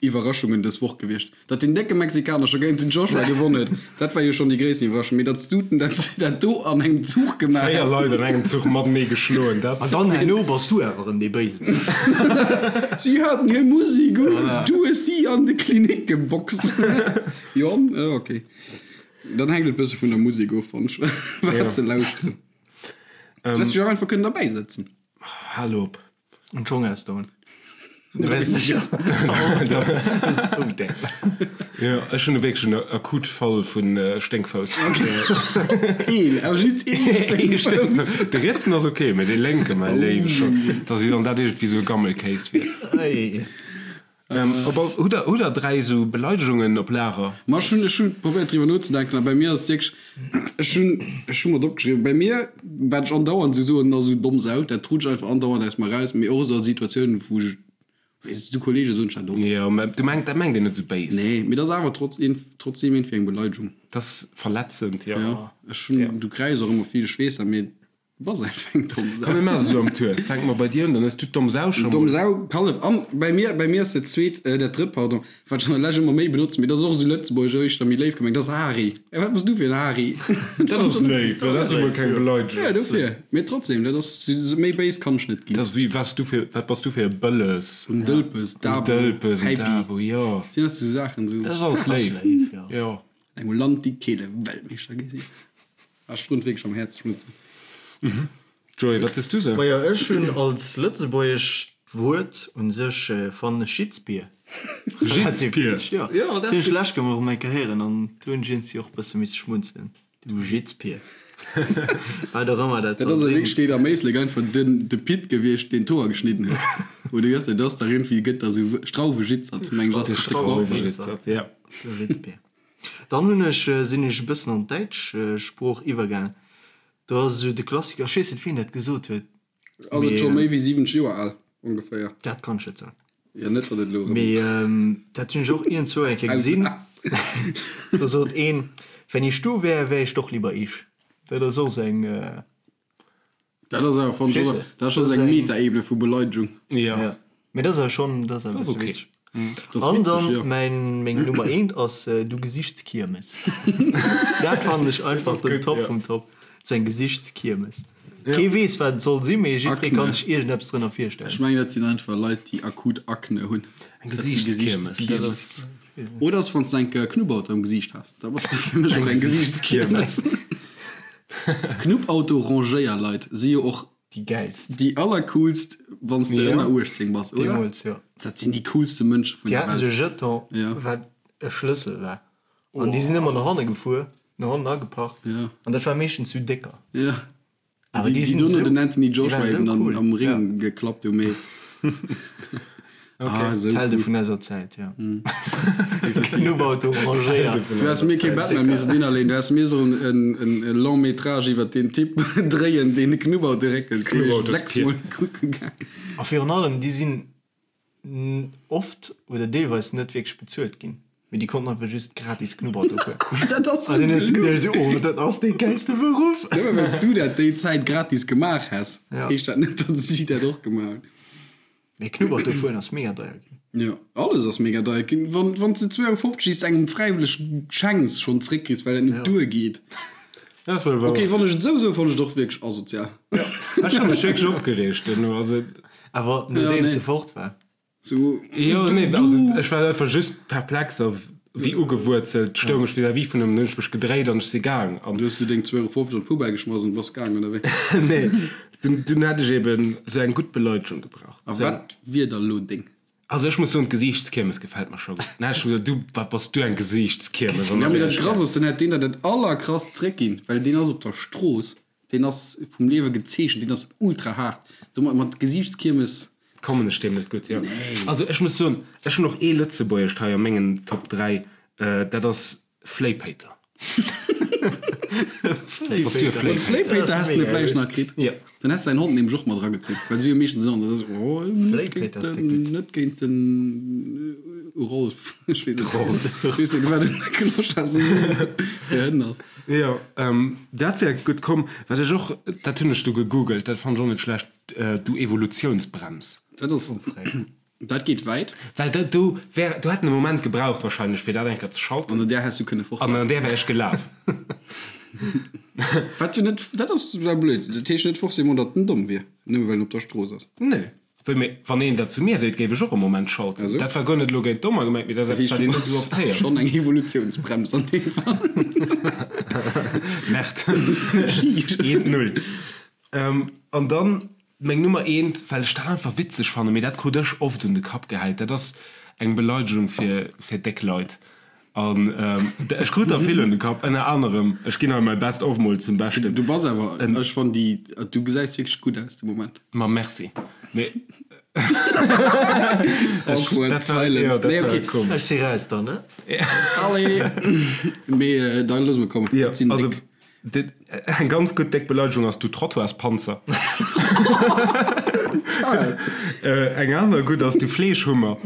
Iwwerraschungen dës Woch gewiescht. Datt deen décke Mexikaner scho géint den Joshua gewonn huet, dat war jo schonn déi gréissten Iwwerraschung. Mee datt s du dat, dat do an engem Zuch gemaach 4 häss. Leit an engem Zuch matenee geschloen, dat. An dann herno bass du awer erëm dee Béisen. Si haten hir Musik un, du hues si an de Klinik geboxt. Jo, ok. Dann hänkt et bësse vun der Musek of, fannen ech, wat se lauschteren. Du häss dech och einfach kënnen derbäi sëtzen. Hal op. An d'Schong ausdoen. Du wärst sicher. Jo, ech hunn wierklech en akut Fall vu Sténkfouss. Een, awer just ee Sténkfouss. De rietsen ass ok, mä dee lénke, mäi Léiwe schonn, dass wéi wann dat iergendwéi sou e Gammelkéis wier. Op all, hutt der, hutt der 3 esou Beleidegungen op Lager? Ma ech hunn, ech hunn probéiert driwwer nozedenken a bei mir ass et wierklech, ech hunn, ech hu mat opgeschriwwen, bei mir, wat ech andauernd esou soen, ass esou domm Sau, dat rutscht einfach andauernd aus mer raus, mee och esou a Situatiounen, wou ech, weess du, Kollege soen ech dat och. Jo, mä du mengt, dat mengt een net esou béis. Nee, mee dat ass awer trotz, trotzdem iergendwéi eng Beleidegung. Dat ass verletzend, jo. Jo, ech hunn, du kräischs och ëmmer vill, ech weess dat, mee Bass einfach eng domm Sau. Komm mir maachen esou am Tour. Fänke mer bei dir un, dann hues du d'domm Sau scho mol. Domm Sau, Kallef. An bei mir, bei mir ass dat zweet, dat drëtt, pardon, wat ech an der Lescht ëmmer méi benotzen, mee dat ass och esou lëtzebuergesch éischter méi léif gemengt, dat ass Hari. Ey, wat bass du fir en Hari? Dat ass léif, dat ass jo mol keng Beleidegung. Jo, dofir. Mee trotzdem, dat ass, méi béis kann ech net ginn. Dat ass wéi, wat s du fir, wat bass du fir e Bëlles? En Dëlpes, Dabo, En Dëlpes, en Häipi. Dabo, jo. Sinn dat esou Saachen, esou. Dat ass alles léif, jo. Engem Land, déi keele Weltmeeschter gi sinn. Ah, Strunz wierklech am Häerz, Strunz. Joé, wat hues du sou? Majo, ech hunn als Lëtzebuergesch. D'Wuert un sech fannen ech Jitzbier. Jitzbier? Jo, dat hunn ech d'lescht Kéier mol erëm eng Kéier héieren an do hunn ech iergendwéi och e bësse misse schmunzelen. Du Jitzbier. Wat och ëmmer dat Dat soll ass a sinn. Wierklechkeet am Éislek einfach den de Pit gewiescht, deen d'Hoer geschnidden huet. Oder wéi ass dat? Dat ass dach iergendwéi, gëtt da sou Strauwejitzert, meng ech, ass De dat de Coiffeur. Strauwejitzert, ja. Du Jitzbier. Dann hunn ech, sinn ech e bëssen an d'däitsch Sprooch iwwergaang. Do ass esou de Klassiker, ech weess net, wien dat gesot huet, Ass et scho méi wéi 70 Joer al, ongeféier? Dat kann ech net soen. Jo, net datt et elo erëm. Mee dat hunn ech och iergendzwou eng Kéier gesinn. Do sot een, Wenn ich du wär, wär ich doch lieber ich. Dat ass och esou eng. Dat ass awer, fannen ech, dat ass scho sou eng Metaebene vu Beleidegung. Jo. Mee dat ass awer schonn, dat ass awer e bësse witzeg. An dann mäin, meng Nummer eent ass Du Gesichtskiermes. Dat fannen ech einfach den Top vum Top. Sou eng Gesichtskiermes. Kee weess wat et soll sinn, mee jiddweree kann sech iergendeppes drënner virstellen. Ech mengen dat sinn einfach Leit déi akut Akne hunn. Eng Gesichtskiermes, dat ass. Oder ass wann s de eng Knubbauto am Gesiicht has, da bass de fir mech och eng Gesichtskiermes. Knubbauto-Rangéierleit si jo och Déi gäilst. Déi allercoolst, wann s de ënner 18 bass, oder? Deemools, jo. Dat sinn déi coolste Mënsche vun Déi der haten Welt. esou Jeton, Ja. wat e Schlëssel war. An déi sinn ëmmer no hanne gefuer, no hannen ageparkt. Ja. An dat war meeschtens sou décker. Ja. Awer Déi, déi déi sinn dono esou, den Anthony déi Joshua waren esou eben an, cool. am Ja. Ring geklappt hu, mee. Ah, esou D'Helde cool. vun eiser Zäit, jo. Knubbauto rangéiert. Du häss mir kee Batman missen innerleeën, du häss mir sollen en, en, e Long métrage iwwer deen Typ dréien, deen de Knubbauto réckelt. Deen ech sechsmol kucke gaang. A virun allem, déi sinn oft oder deelweis net wierklech bezuelt ginn, mee déi konnten einfach just gratis Knubbauto fueren. Dat ass An sou dann hues du geluch. geduecht, esou, oh, dat ass dee gäilste Beruff. Nëmme well s du dat déi Zäit gratis gemaach häss, Ja. heescht dat net, datt si dat och gemaach hunn. Mee Knubbert do fueren ass mega deier ginn. Jo, alles ass mega deier ginn. Wann, wann s de 2,50 Euro déi s de engem fräiwëlleg schenks, schonn zeréckkriss, well dat net duergeet. Dat ass wuel wouer. Ok, wann ech et esou soen, fannen ech et och wierklech asozial. Ech hu mech wierklech opgereegt duerno. Also. Awer nodeems se fort war. Sou, Jo, du, nee, also du. ech war einfach just perplex a wéi ugewuerzelt stoung ech vis-à-vis vun him. Dann hunn ech mech gedréit an ech si gaang. An Du hues du deng 2,50 Euro an d'Poubelle geschmass an bass gaang, oder wéi? Nee, dunn, dunn hätt ech eben sou eng gutt Beleidegung gebraucht. A Sou eng. wat wier da lo deng? Also ech muss soen, d'Gesiichtskiermes gefält mer scho gutt. Dann hätt ech gesot, du, wat bass du eng Gesiichtskiermes? An Ja, da mee wär dat ech Krass gaang. ass, dann hätt deen der dat allerkrasst zréckginn, well deen ass op der Strooss, deen ass vum Liewe gezeechent, deen ass ultra haart. Domat mat Gesiichtskiermes. Kommen ech deem net gutt, jo. Also ech muss soen, ech hunn och ee Lëtzebuergescht hei a mengen Top 3, dat ass Fléipéiter. Bass du e Fléipéiter? Fléipéiter? Häss de vläicht nach kritt. Jo. Dann häss de säin Hond nämlech och mat eragezunn, well si hu meeschtens en Hond, dat ass, oh, net géint den, net géint den Rolf, ech weess net, ech weess net, wat en Clochard fir Hënn ass. Jo, dat wär gutt komm. Wat ech och, dat hunn ech du gegoogelt, dat fannen ech och net schlecht, Du Evolutiounsbrems. Dat ass, dat geet wäit. Well dat do wär, do hätt en e Moment gebraucht wahrscheinlech, fir dat eng Kéier ze schalten. An an där häss du kënne An an fortlafen. där wär ech gelaf. Wat jo net, dat ass da blöd. Dat heescht net forcément, datt en domm wier, nëmme well en op der Strooss ass. Nee. Wéi, mee wann een dat zu mir seet, géif ech och e Moment schalten. Also? Dat war guer net elo géint Dommer gemengt, mee dat ass Dat eppes, heescht, wat du een net esou bass oft héiert. schonn eng Evolutiounsbrems an deem Fall. Merde. Eent, null. An dann meng Nummer eent, well ech dat einfach witzeg fannen, mee dat krut ech oft un de Kapp gehäit, dat ass eng Beleidegung fir fir déck Leit. An ech krut der vill un de Kapp, ënner anerem, ech ginn hei mäi Best of mol zum Beschten. Du bass awer, ech fannen déi, du gesäis wierklech gutt aus de Moment. Ma merci. Mee Awkward dat war, jo, silence. dat Nee, war okay. komesch. Ech si raus dann, ne? Allez! Mee da loosse mer kommen. Jo, Dat sinn also déck. Eng ganz gutt déck Beleidegung ass du Trottoirspanzer. Eng aner gutt ass du Fleeschhummer.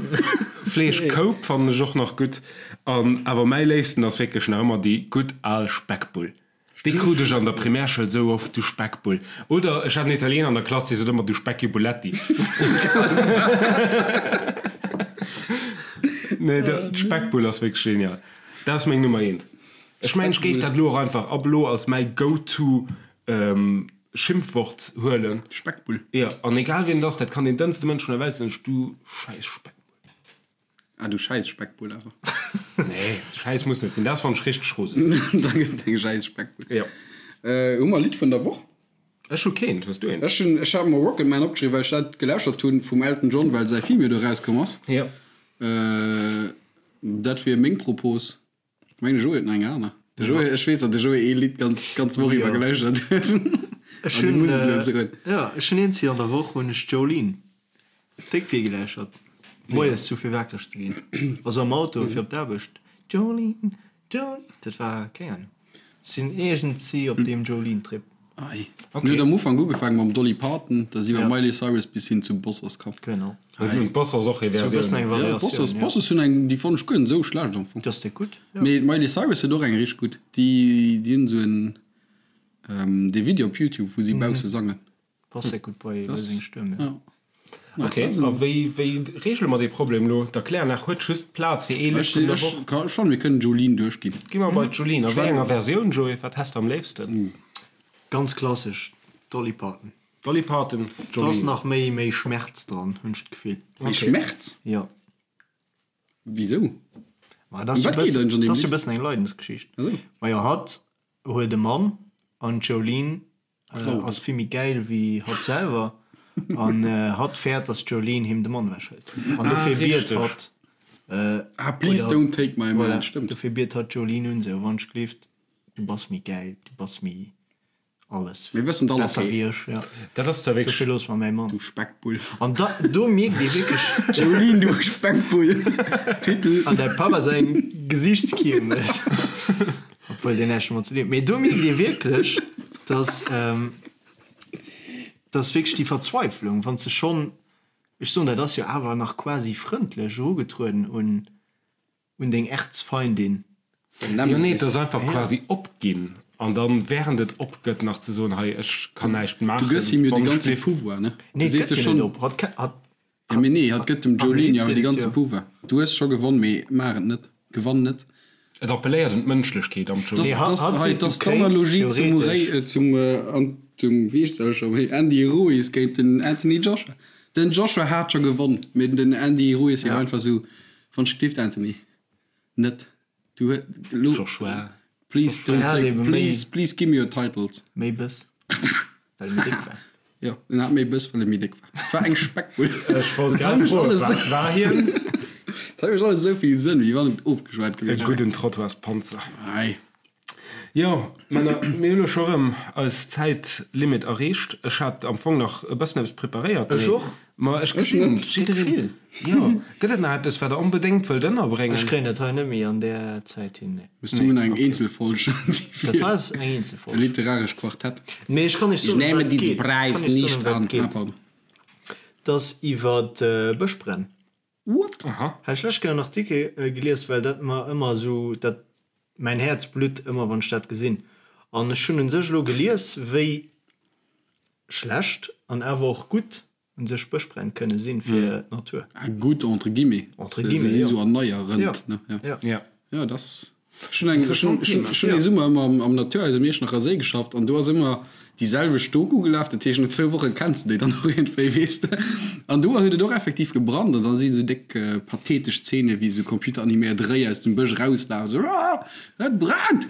Fleeschkoup fannen ech och nach gutt. An awer mäi léifsten ass wierklech nach ëmmer déi gutt al Speckbull. Déi krut ech an der Primärschoul sou oft, du Speckbull. Oder ech hat en Italiener an der Klass, dee sot ëmmer du Speckibuletti. Nee, d'Speckbull ass wierklech genial. Dat ass meng Nummer eent. Ech mengen ech géif dat elo och einfach ab elo als mäi go-to Schimpfwort huelen. Speckbull. Jo, an egal wien et ass, dat kann deen dënnste Mënsch vun der Welt sinn, ech du schäiss Speckbull. Ah, du schäiss Speckbull awer. Nee, schäiss muss net sinn, dat fannen ech richteg roseg. Da gëtt et eng schäiss Speckbull. Jo. Hu mer Lidd vun der Woch? Ech hu keent. Hues du eent? Ech hunn, ech hat mer Rocket Man opgeschriwwen, well ech dat gelauschtert hunn vum Elton John, well säi Film jo do erauskomm ass. Jo. Dat wier meng Propos. Ech mengen de Joé huet nach eng aner. De Joé, ech weess, datt de Joé ee Lidd ganz, d'ganz Woch iwwer gelauschtert huet. Ech hunn, muss et elo soen. Jo, ech hunn eent, an der Woch hunn ech Jolene déck vill gelauschtert. Moies sou fir wakereg ze ginn, also am Auto fir op d'Aarbecht. Jolene, Jolene, dat war, keng Ahnung. Sinn iergendsi op deem Jolene-Trip. Ei. Mir huet am Ufank ugefaangen mam Dolly Parton, da si iwwer Miley Cyrus bis hin zu Bossers komm. Genau. Hun d'Bossers och hir Versioun? Ja, d'Bossers, d'Bossers hunn eng, déi fannen ech guer net esou schlecht am Fong. Déi ass déck gutt, jo. Mee d'Miley Cyrus huet och eng richteg gutt. Déi, déi hunn esou en, dee Video op Youtube, wou si bausse sangen. Passt déck gutt bei seng Stëmm, jo. Ok, a wéi wéi reegele mer dee Problem elo? D'Erkläranlag huet just Plaz fir ee Lidd vun der Woch. Ech fannen, mir kënnen Jolene duerchginn. Gi mer bei d'Jolene. A wéi enger Versioun, Joé? Wat häss de am léifsten? Ganz klassesch, Dolly Parton. Dolly Parton, Jolene. Do ass nach méi méi Schmerz dran, hunn ech d'Gefill. Méi Schmerz? Jo. Wisou? Ma dat ass jo e bëssen eng Leidensgeschicht. Majo, hatt huet e Mann an d'Jolene Ass vill méi gäil wéi hatt selwer an hatt fäert dass d'Jolene him de Mann ewech hëlt an dofir biet hatt Ah please don't take my man, stëmmt. Dofir biet hatt d'Jolene un sou wann ech gleeft du bass méi gäil, du bass méi alles, Mir wëssen et besser wéi ech, ja Dat ass zwar wierklech. Dofir looss mer mäi Mann. Du Speckbull. An da do mierkt ee wierklech. Jolene du Speckbull, Titel. An däi Papp ass eng Gesiichtskiermes. Obwuel deen näischt domat ze dinn huet. Mee do mierkt ee wierklech, dass, dass wierklech déi Verzweiflung, wann s de schonn, ech soen, dat ass jo awer nach quasi frëndlech erugetrueden un, un deng Erzfeindin. Jo, nee, et ass einfach quasi opginn an dann, während et opgëtt, nach ze soen, hei, ech kann näischt maachen. Du gëss him jo de ganze Pouvoir, ne? Nee, et gëtt hien net op. Hatt, hatt, Ja, mee nee, hatt gëtt dem Jolene jo awer de ganze Pouvoir. Du hues scho gewonn, mee maach et net. Gewann net. Et appelléiert un d'Mënschlechkeet am Jolene. Dass, dass hei, dass d'Analogie zum Murray, zum, an, zum, wéi heescht se scho méi, Andy Ruiz géint den Anthony Joshua. Den Joshua hat scho gewonn, mee den Andy Ruiz war einfach esou, Wann ech gelift, Anthony, net. Du huet lo Joshua. Please don't take, please, please give me your titles. Méi Bëss, well e méi déck war. Jo, en hat méi Bëss, well e méi déck war. Et war eng Speckbull. Ech wollt grad froen, wat war hien? Dat mécht alles esou vill Sënn, wéi wann et ofgeschwat gewiescht wär. E gudden Trottoirspanzer. Ei. Jo, Männer, mir hunn elo scho erëm eis Zäitlimit erreecht. Ech hat am Fong nach e bëssen eppes preparéiert, Ech och. Ma ech gesinn, jiddereen. Jo, gëtt et nach eppes, wat Der onbedéngt wëllt ënnerbréngen? Ech kréien dat hei net méi an där Zäit hin, nee. Mee du hunn eng Eenzelfolg. Dat hei ass eng Eenzelfolg. E literarescht Quartett. Mee ech kann iech soen, ëm wat et geet. Ech kann iech soen, ëm wat et geet. Et ass iwwer Bëschbränn. What? Aha. Hat ech lech gär en Artikel gelies, well dat mer ëmmer esou, dat, mäin Häerz blutt ëmmer wann ech dat gesinn. An ech hunn un sech elo gelies, wéi schlecht an awer och gutt un sech Bëschbränn kënne sinn fir d'Natur. Ah, gutt entre guillemets. Entre guillemets, jo. Se si sou erneierend, ne? Ja. Ja. Ja. Ja, dat ass. Ech hunn eng, ech hunn, ech hunn, ech hunn ee Summer ëmmer am, am Naturhaus um Iechternacher Séi geschafft an do ass ëmmer déi selwecht Doku gelaf. Dat heescht, no zwou Woche kenns de déi dann och iergendwéi, weess de. An do huet et och effektiv gebrannt an da sinn esou déck pathetesch Zeene wéi esou computeraniméiert Réi aus dem Bësch erauslafen, esou, Aah, et brennt!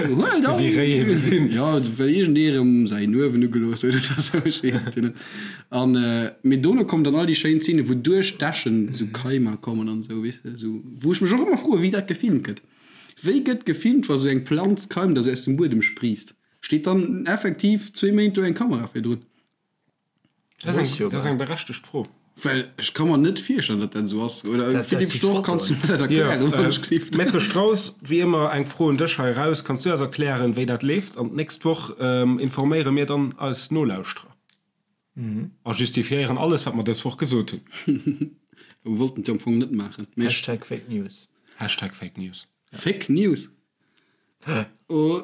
Huelt Esou wéi Réi ebe sinn. Jo, well iergendee erëm säin Uewen ugelooss huet oder esou, ech weess et jo net. An, mee dono kommen dann all déi schéin Zeenen, wou duerch d'Äschen esou Keimer kommen an esou, weess de, esou, wou ech mech och ëmmer froen, wéi dat gefilmt gëtt. Wéi gëtt gefilmt, wa sou eng Planz keimt a se aus dem Buedem spriisst? Steet dann effektiv zwee Méint do eng Kamera virdrun? Dat ass eng, dat ass eng berechtegt Fro. Well ech ka mer net virstellen, datt dat esou ass. Oder Philippe Storch, kanns du mer dat erklären, wann ech gleeft? Maître Strauss, wéi ëmmer eng Fro un dech hei eraus, Kanns du eis erklären, wéi dat leeft? An d'nächst Woch informéiere mir dann eis Nolauschterer a justifiéieren alles, wat mer dës Woch gesot hunn. Mir wollten et jo am Fong net maachen. Hashtag Fake News. Hashtag Fake News. Fake News? Oh.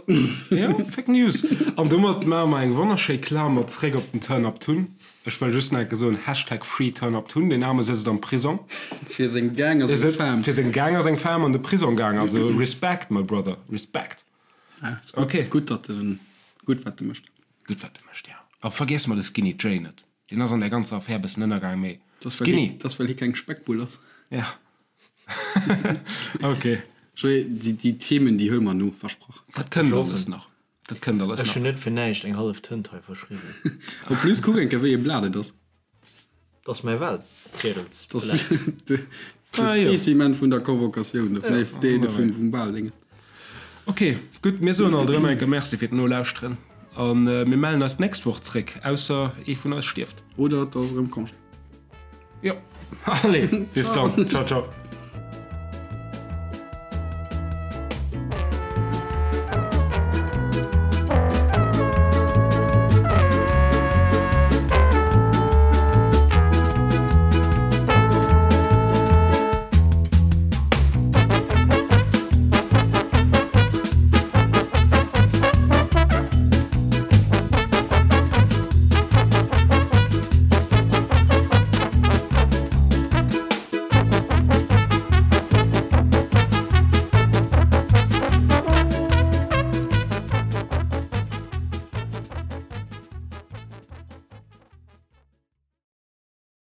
Jo, Fake News. An domat maache mer eng wonnerschéi Klamer zréck op den Turn Up Tun. Ech wëll just nach eng Kéier soen, Hashtag Free Turn Up Tun. Deen Aarme sëtzt am Prisong. Fir seng Gang a seng Fam. Fir seng Gang a seng Fam an de Prisong gaang. Also Respect, my brother, Respect. Ja, ass gutt, Okay. gutt, datt en, gutt wat e mécht. Gutt wat e mécht, ja. A vergiesse mer de Skinny Jay net. Deen ass an där ganzer Affär e bëssen ënnergaang, mee Dat ass, well Skinny. hie, dat ass well hie keng Speckbull ass. Ja. Ok. Joé, déi, déi Themen, déi huele mer no, versprach. Dat kënnt alles nach. Dat kënnt alles nach. Ech hunn net fir näischt eng hallef Tënt hei verschriwwen. En plus, kuck eng Kéier, wéi e Blat et ass. Dat ass mäi Wahlziedelsblat. Dat ass de Spécimen vun der Convocatioun, nee, dee vum Wahldéngen. Ok, gutt, mir soen alt erëm eng Kéier Merci fir d'Nolauschteren a mir mellen eis d'nächst Woch zréck, ausser ee vun eis stierft. Oder et ass erëm Congé. Jo, allez, bis dann, ciao, ciao.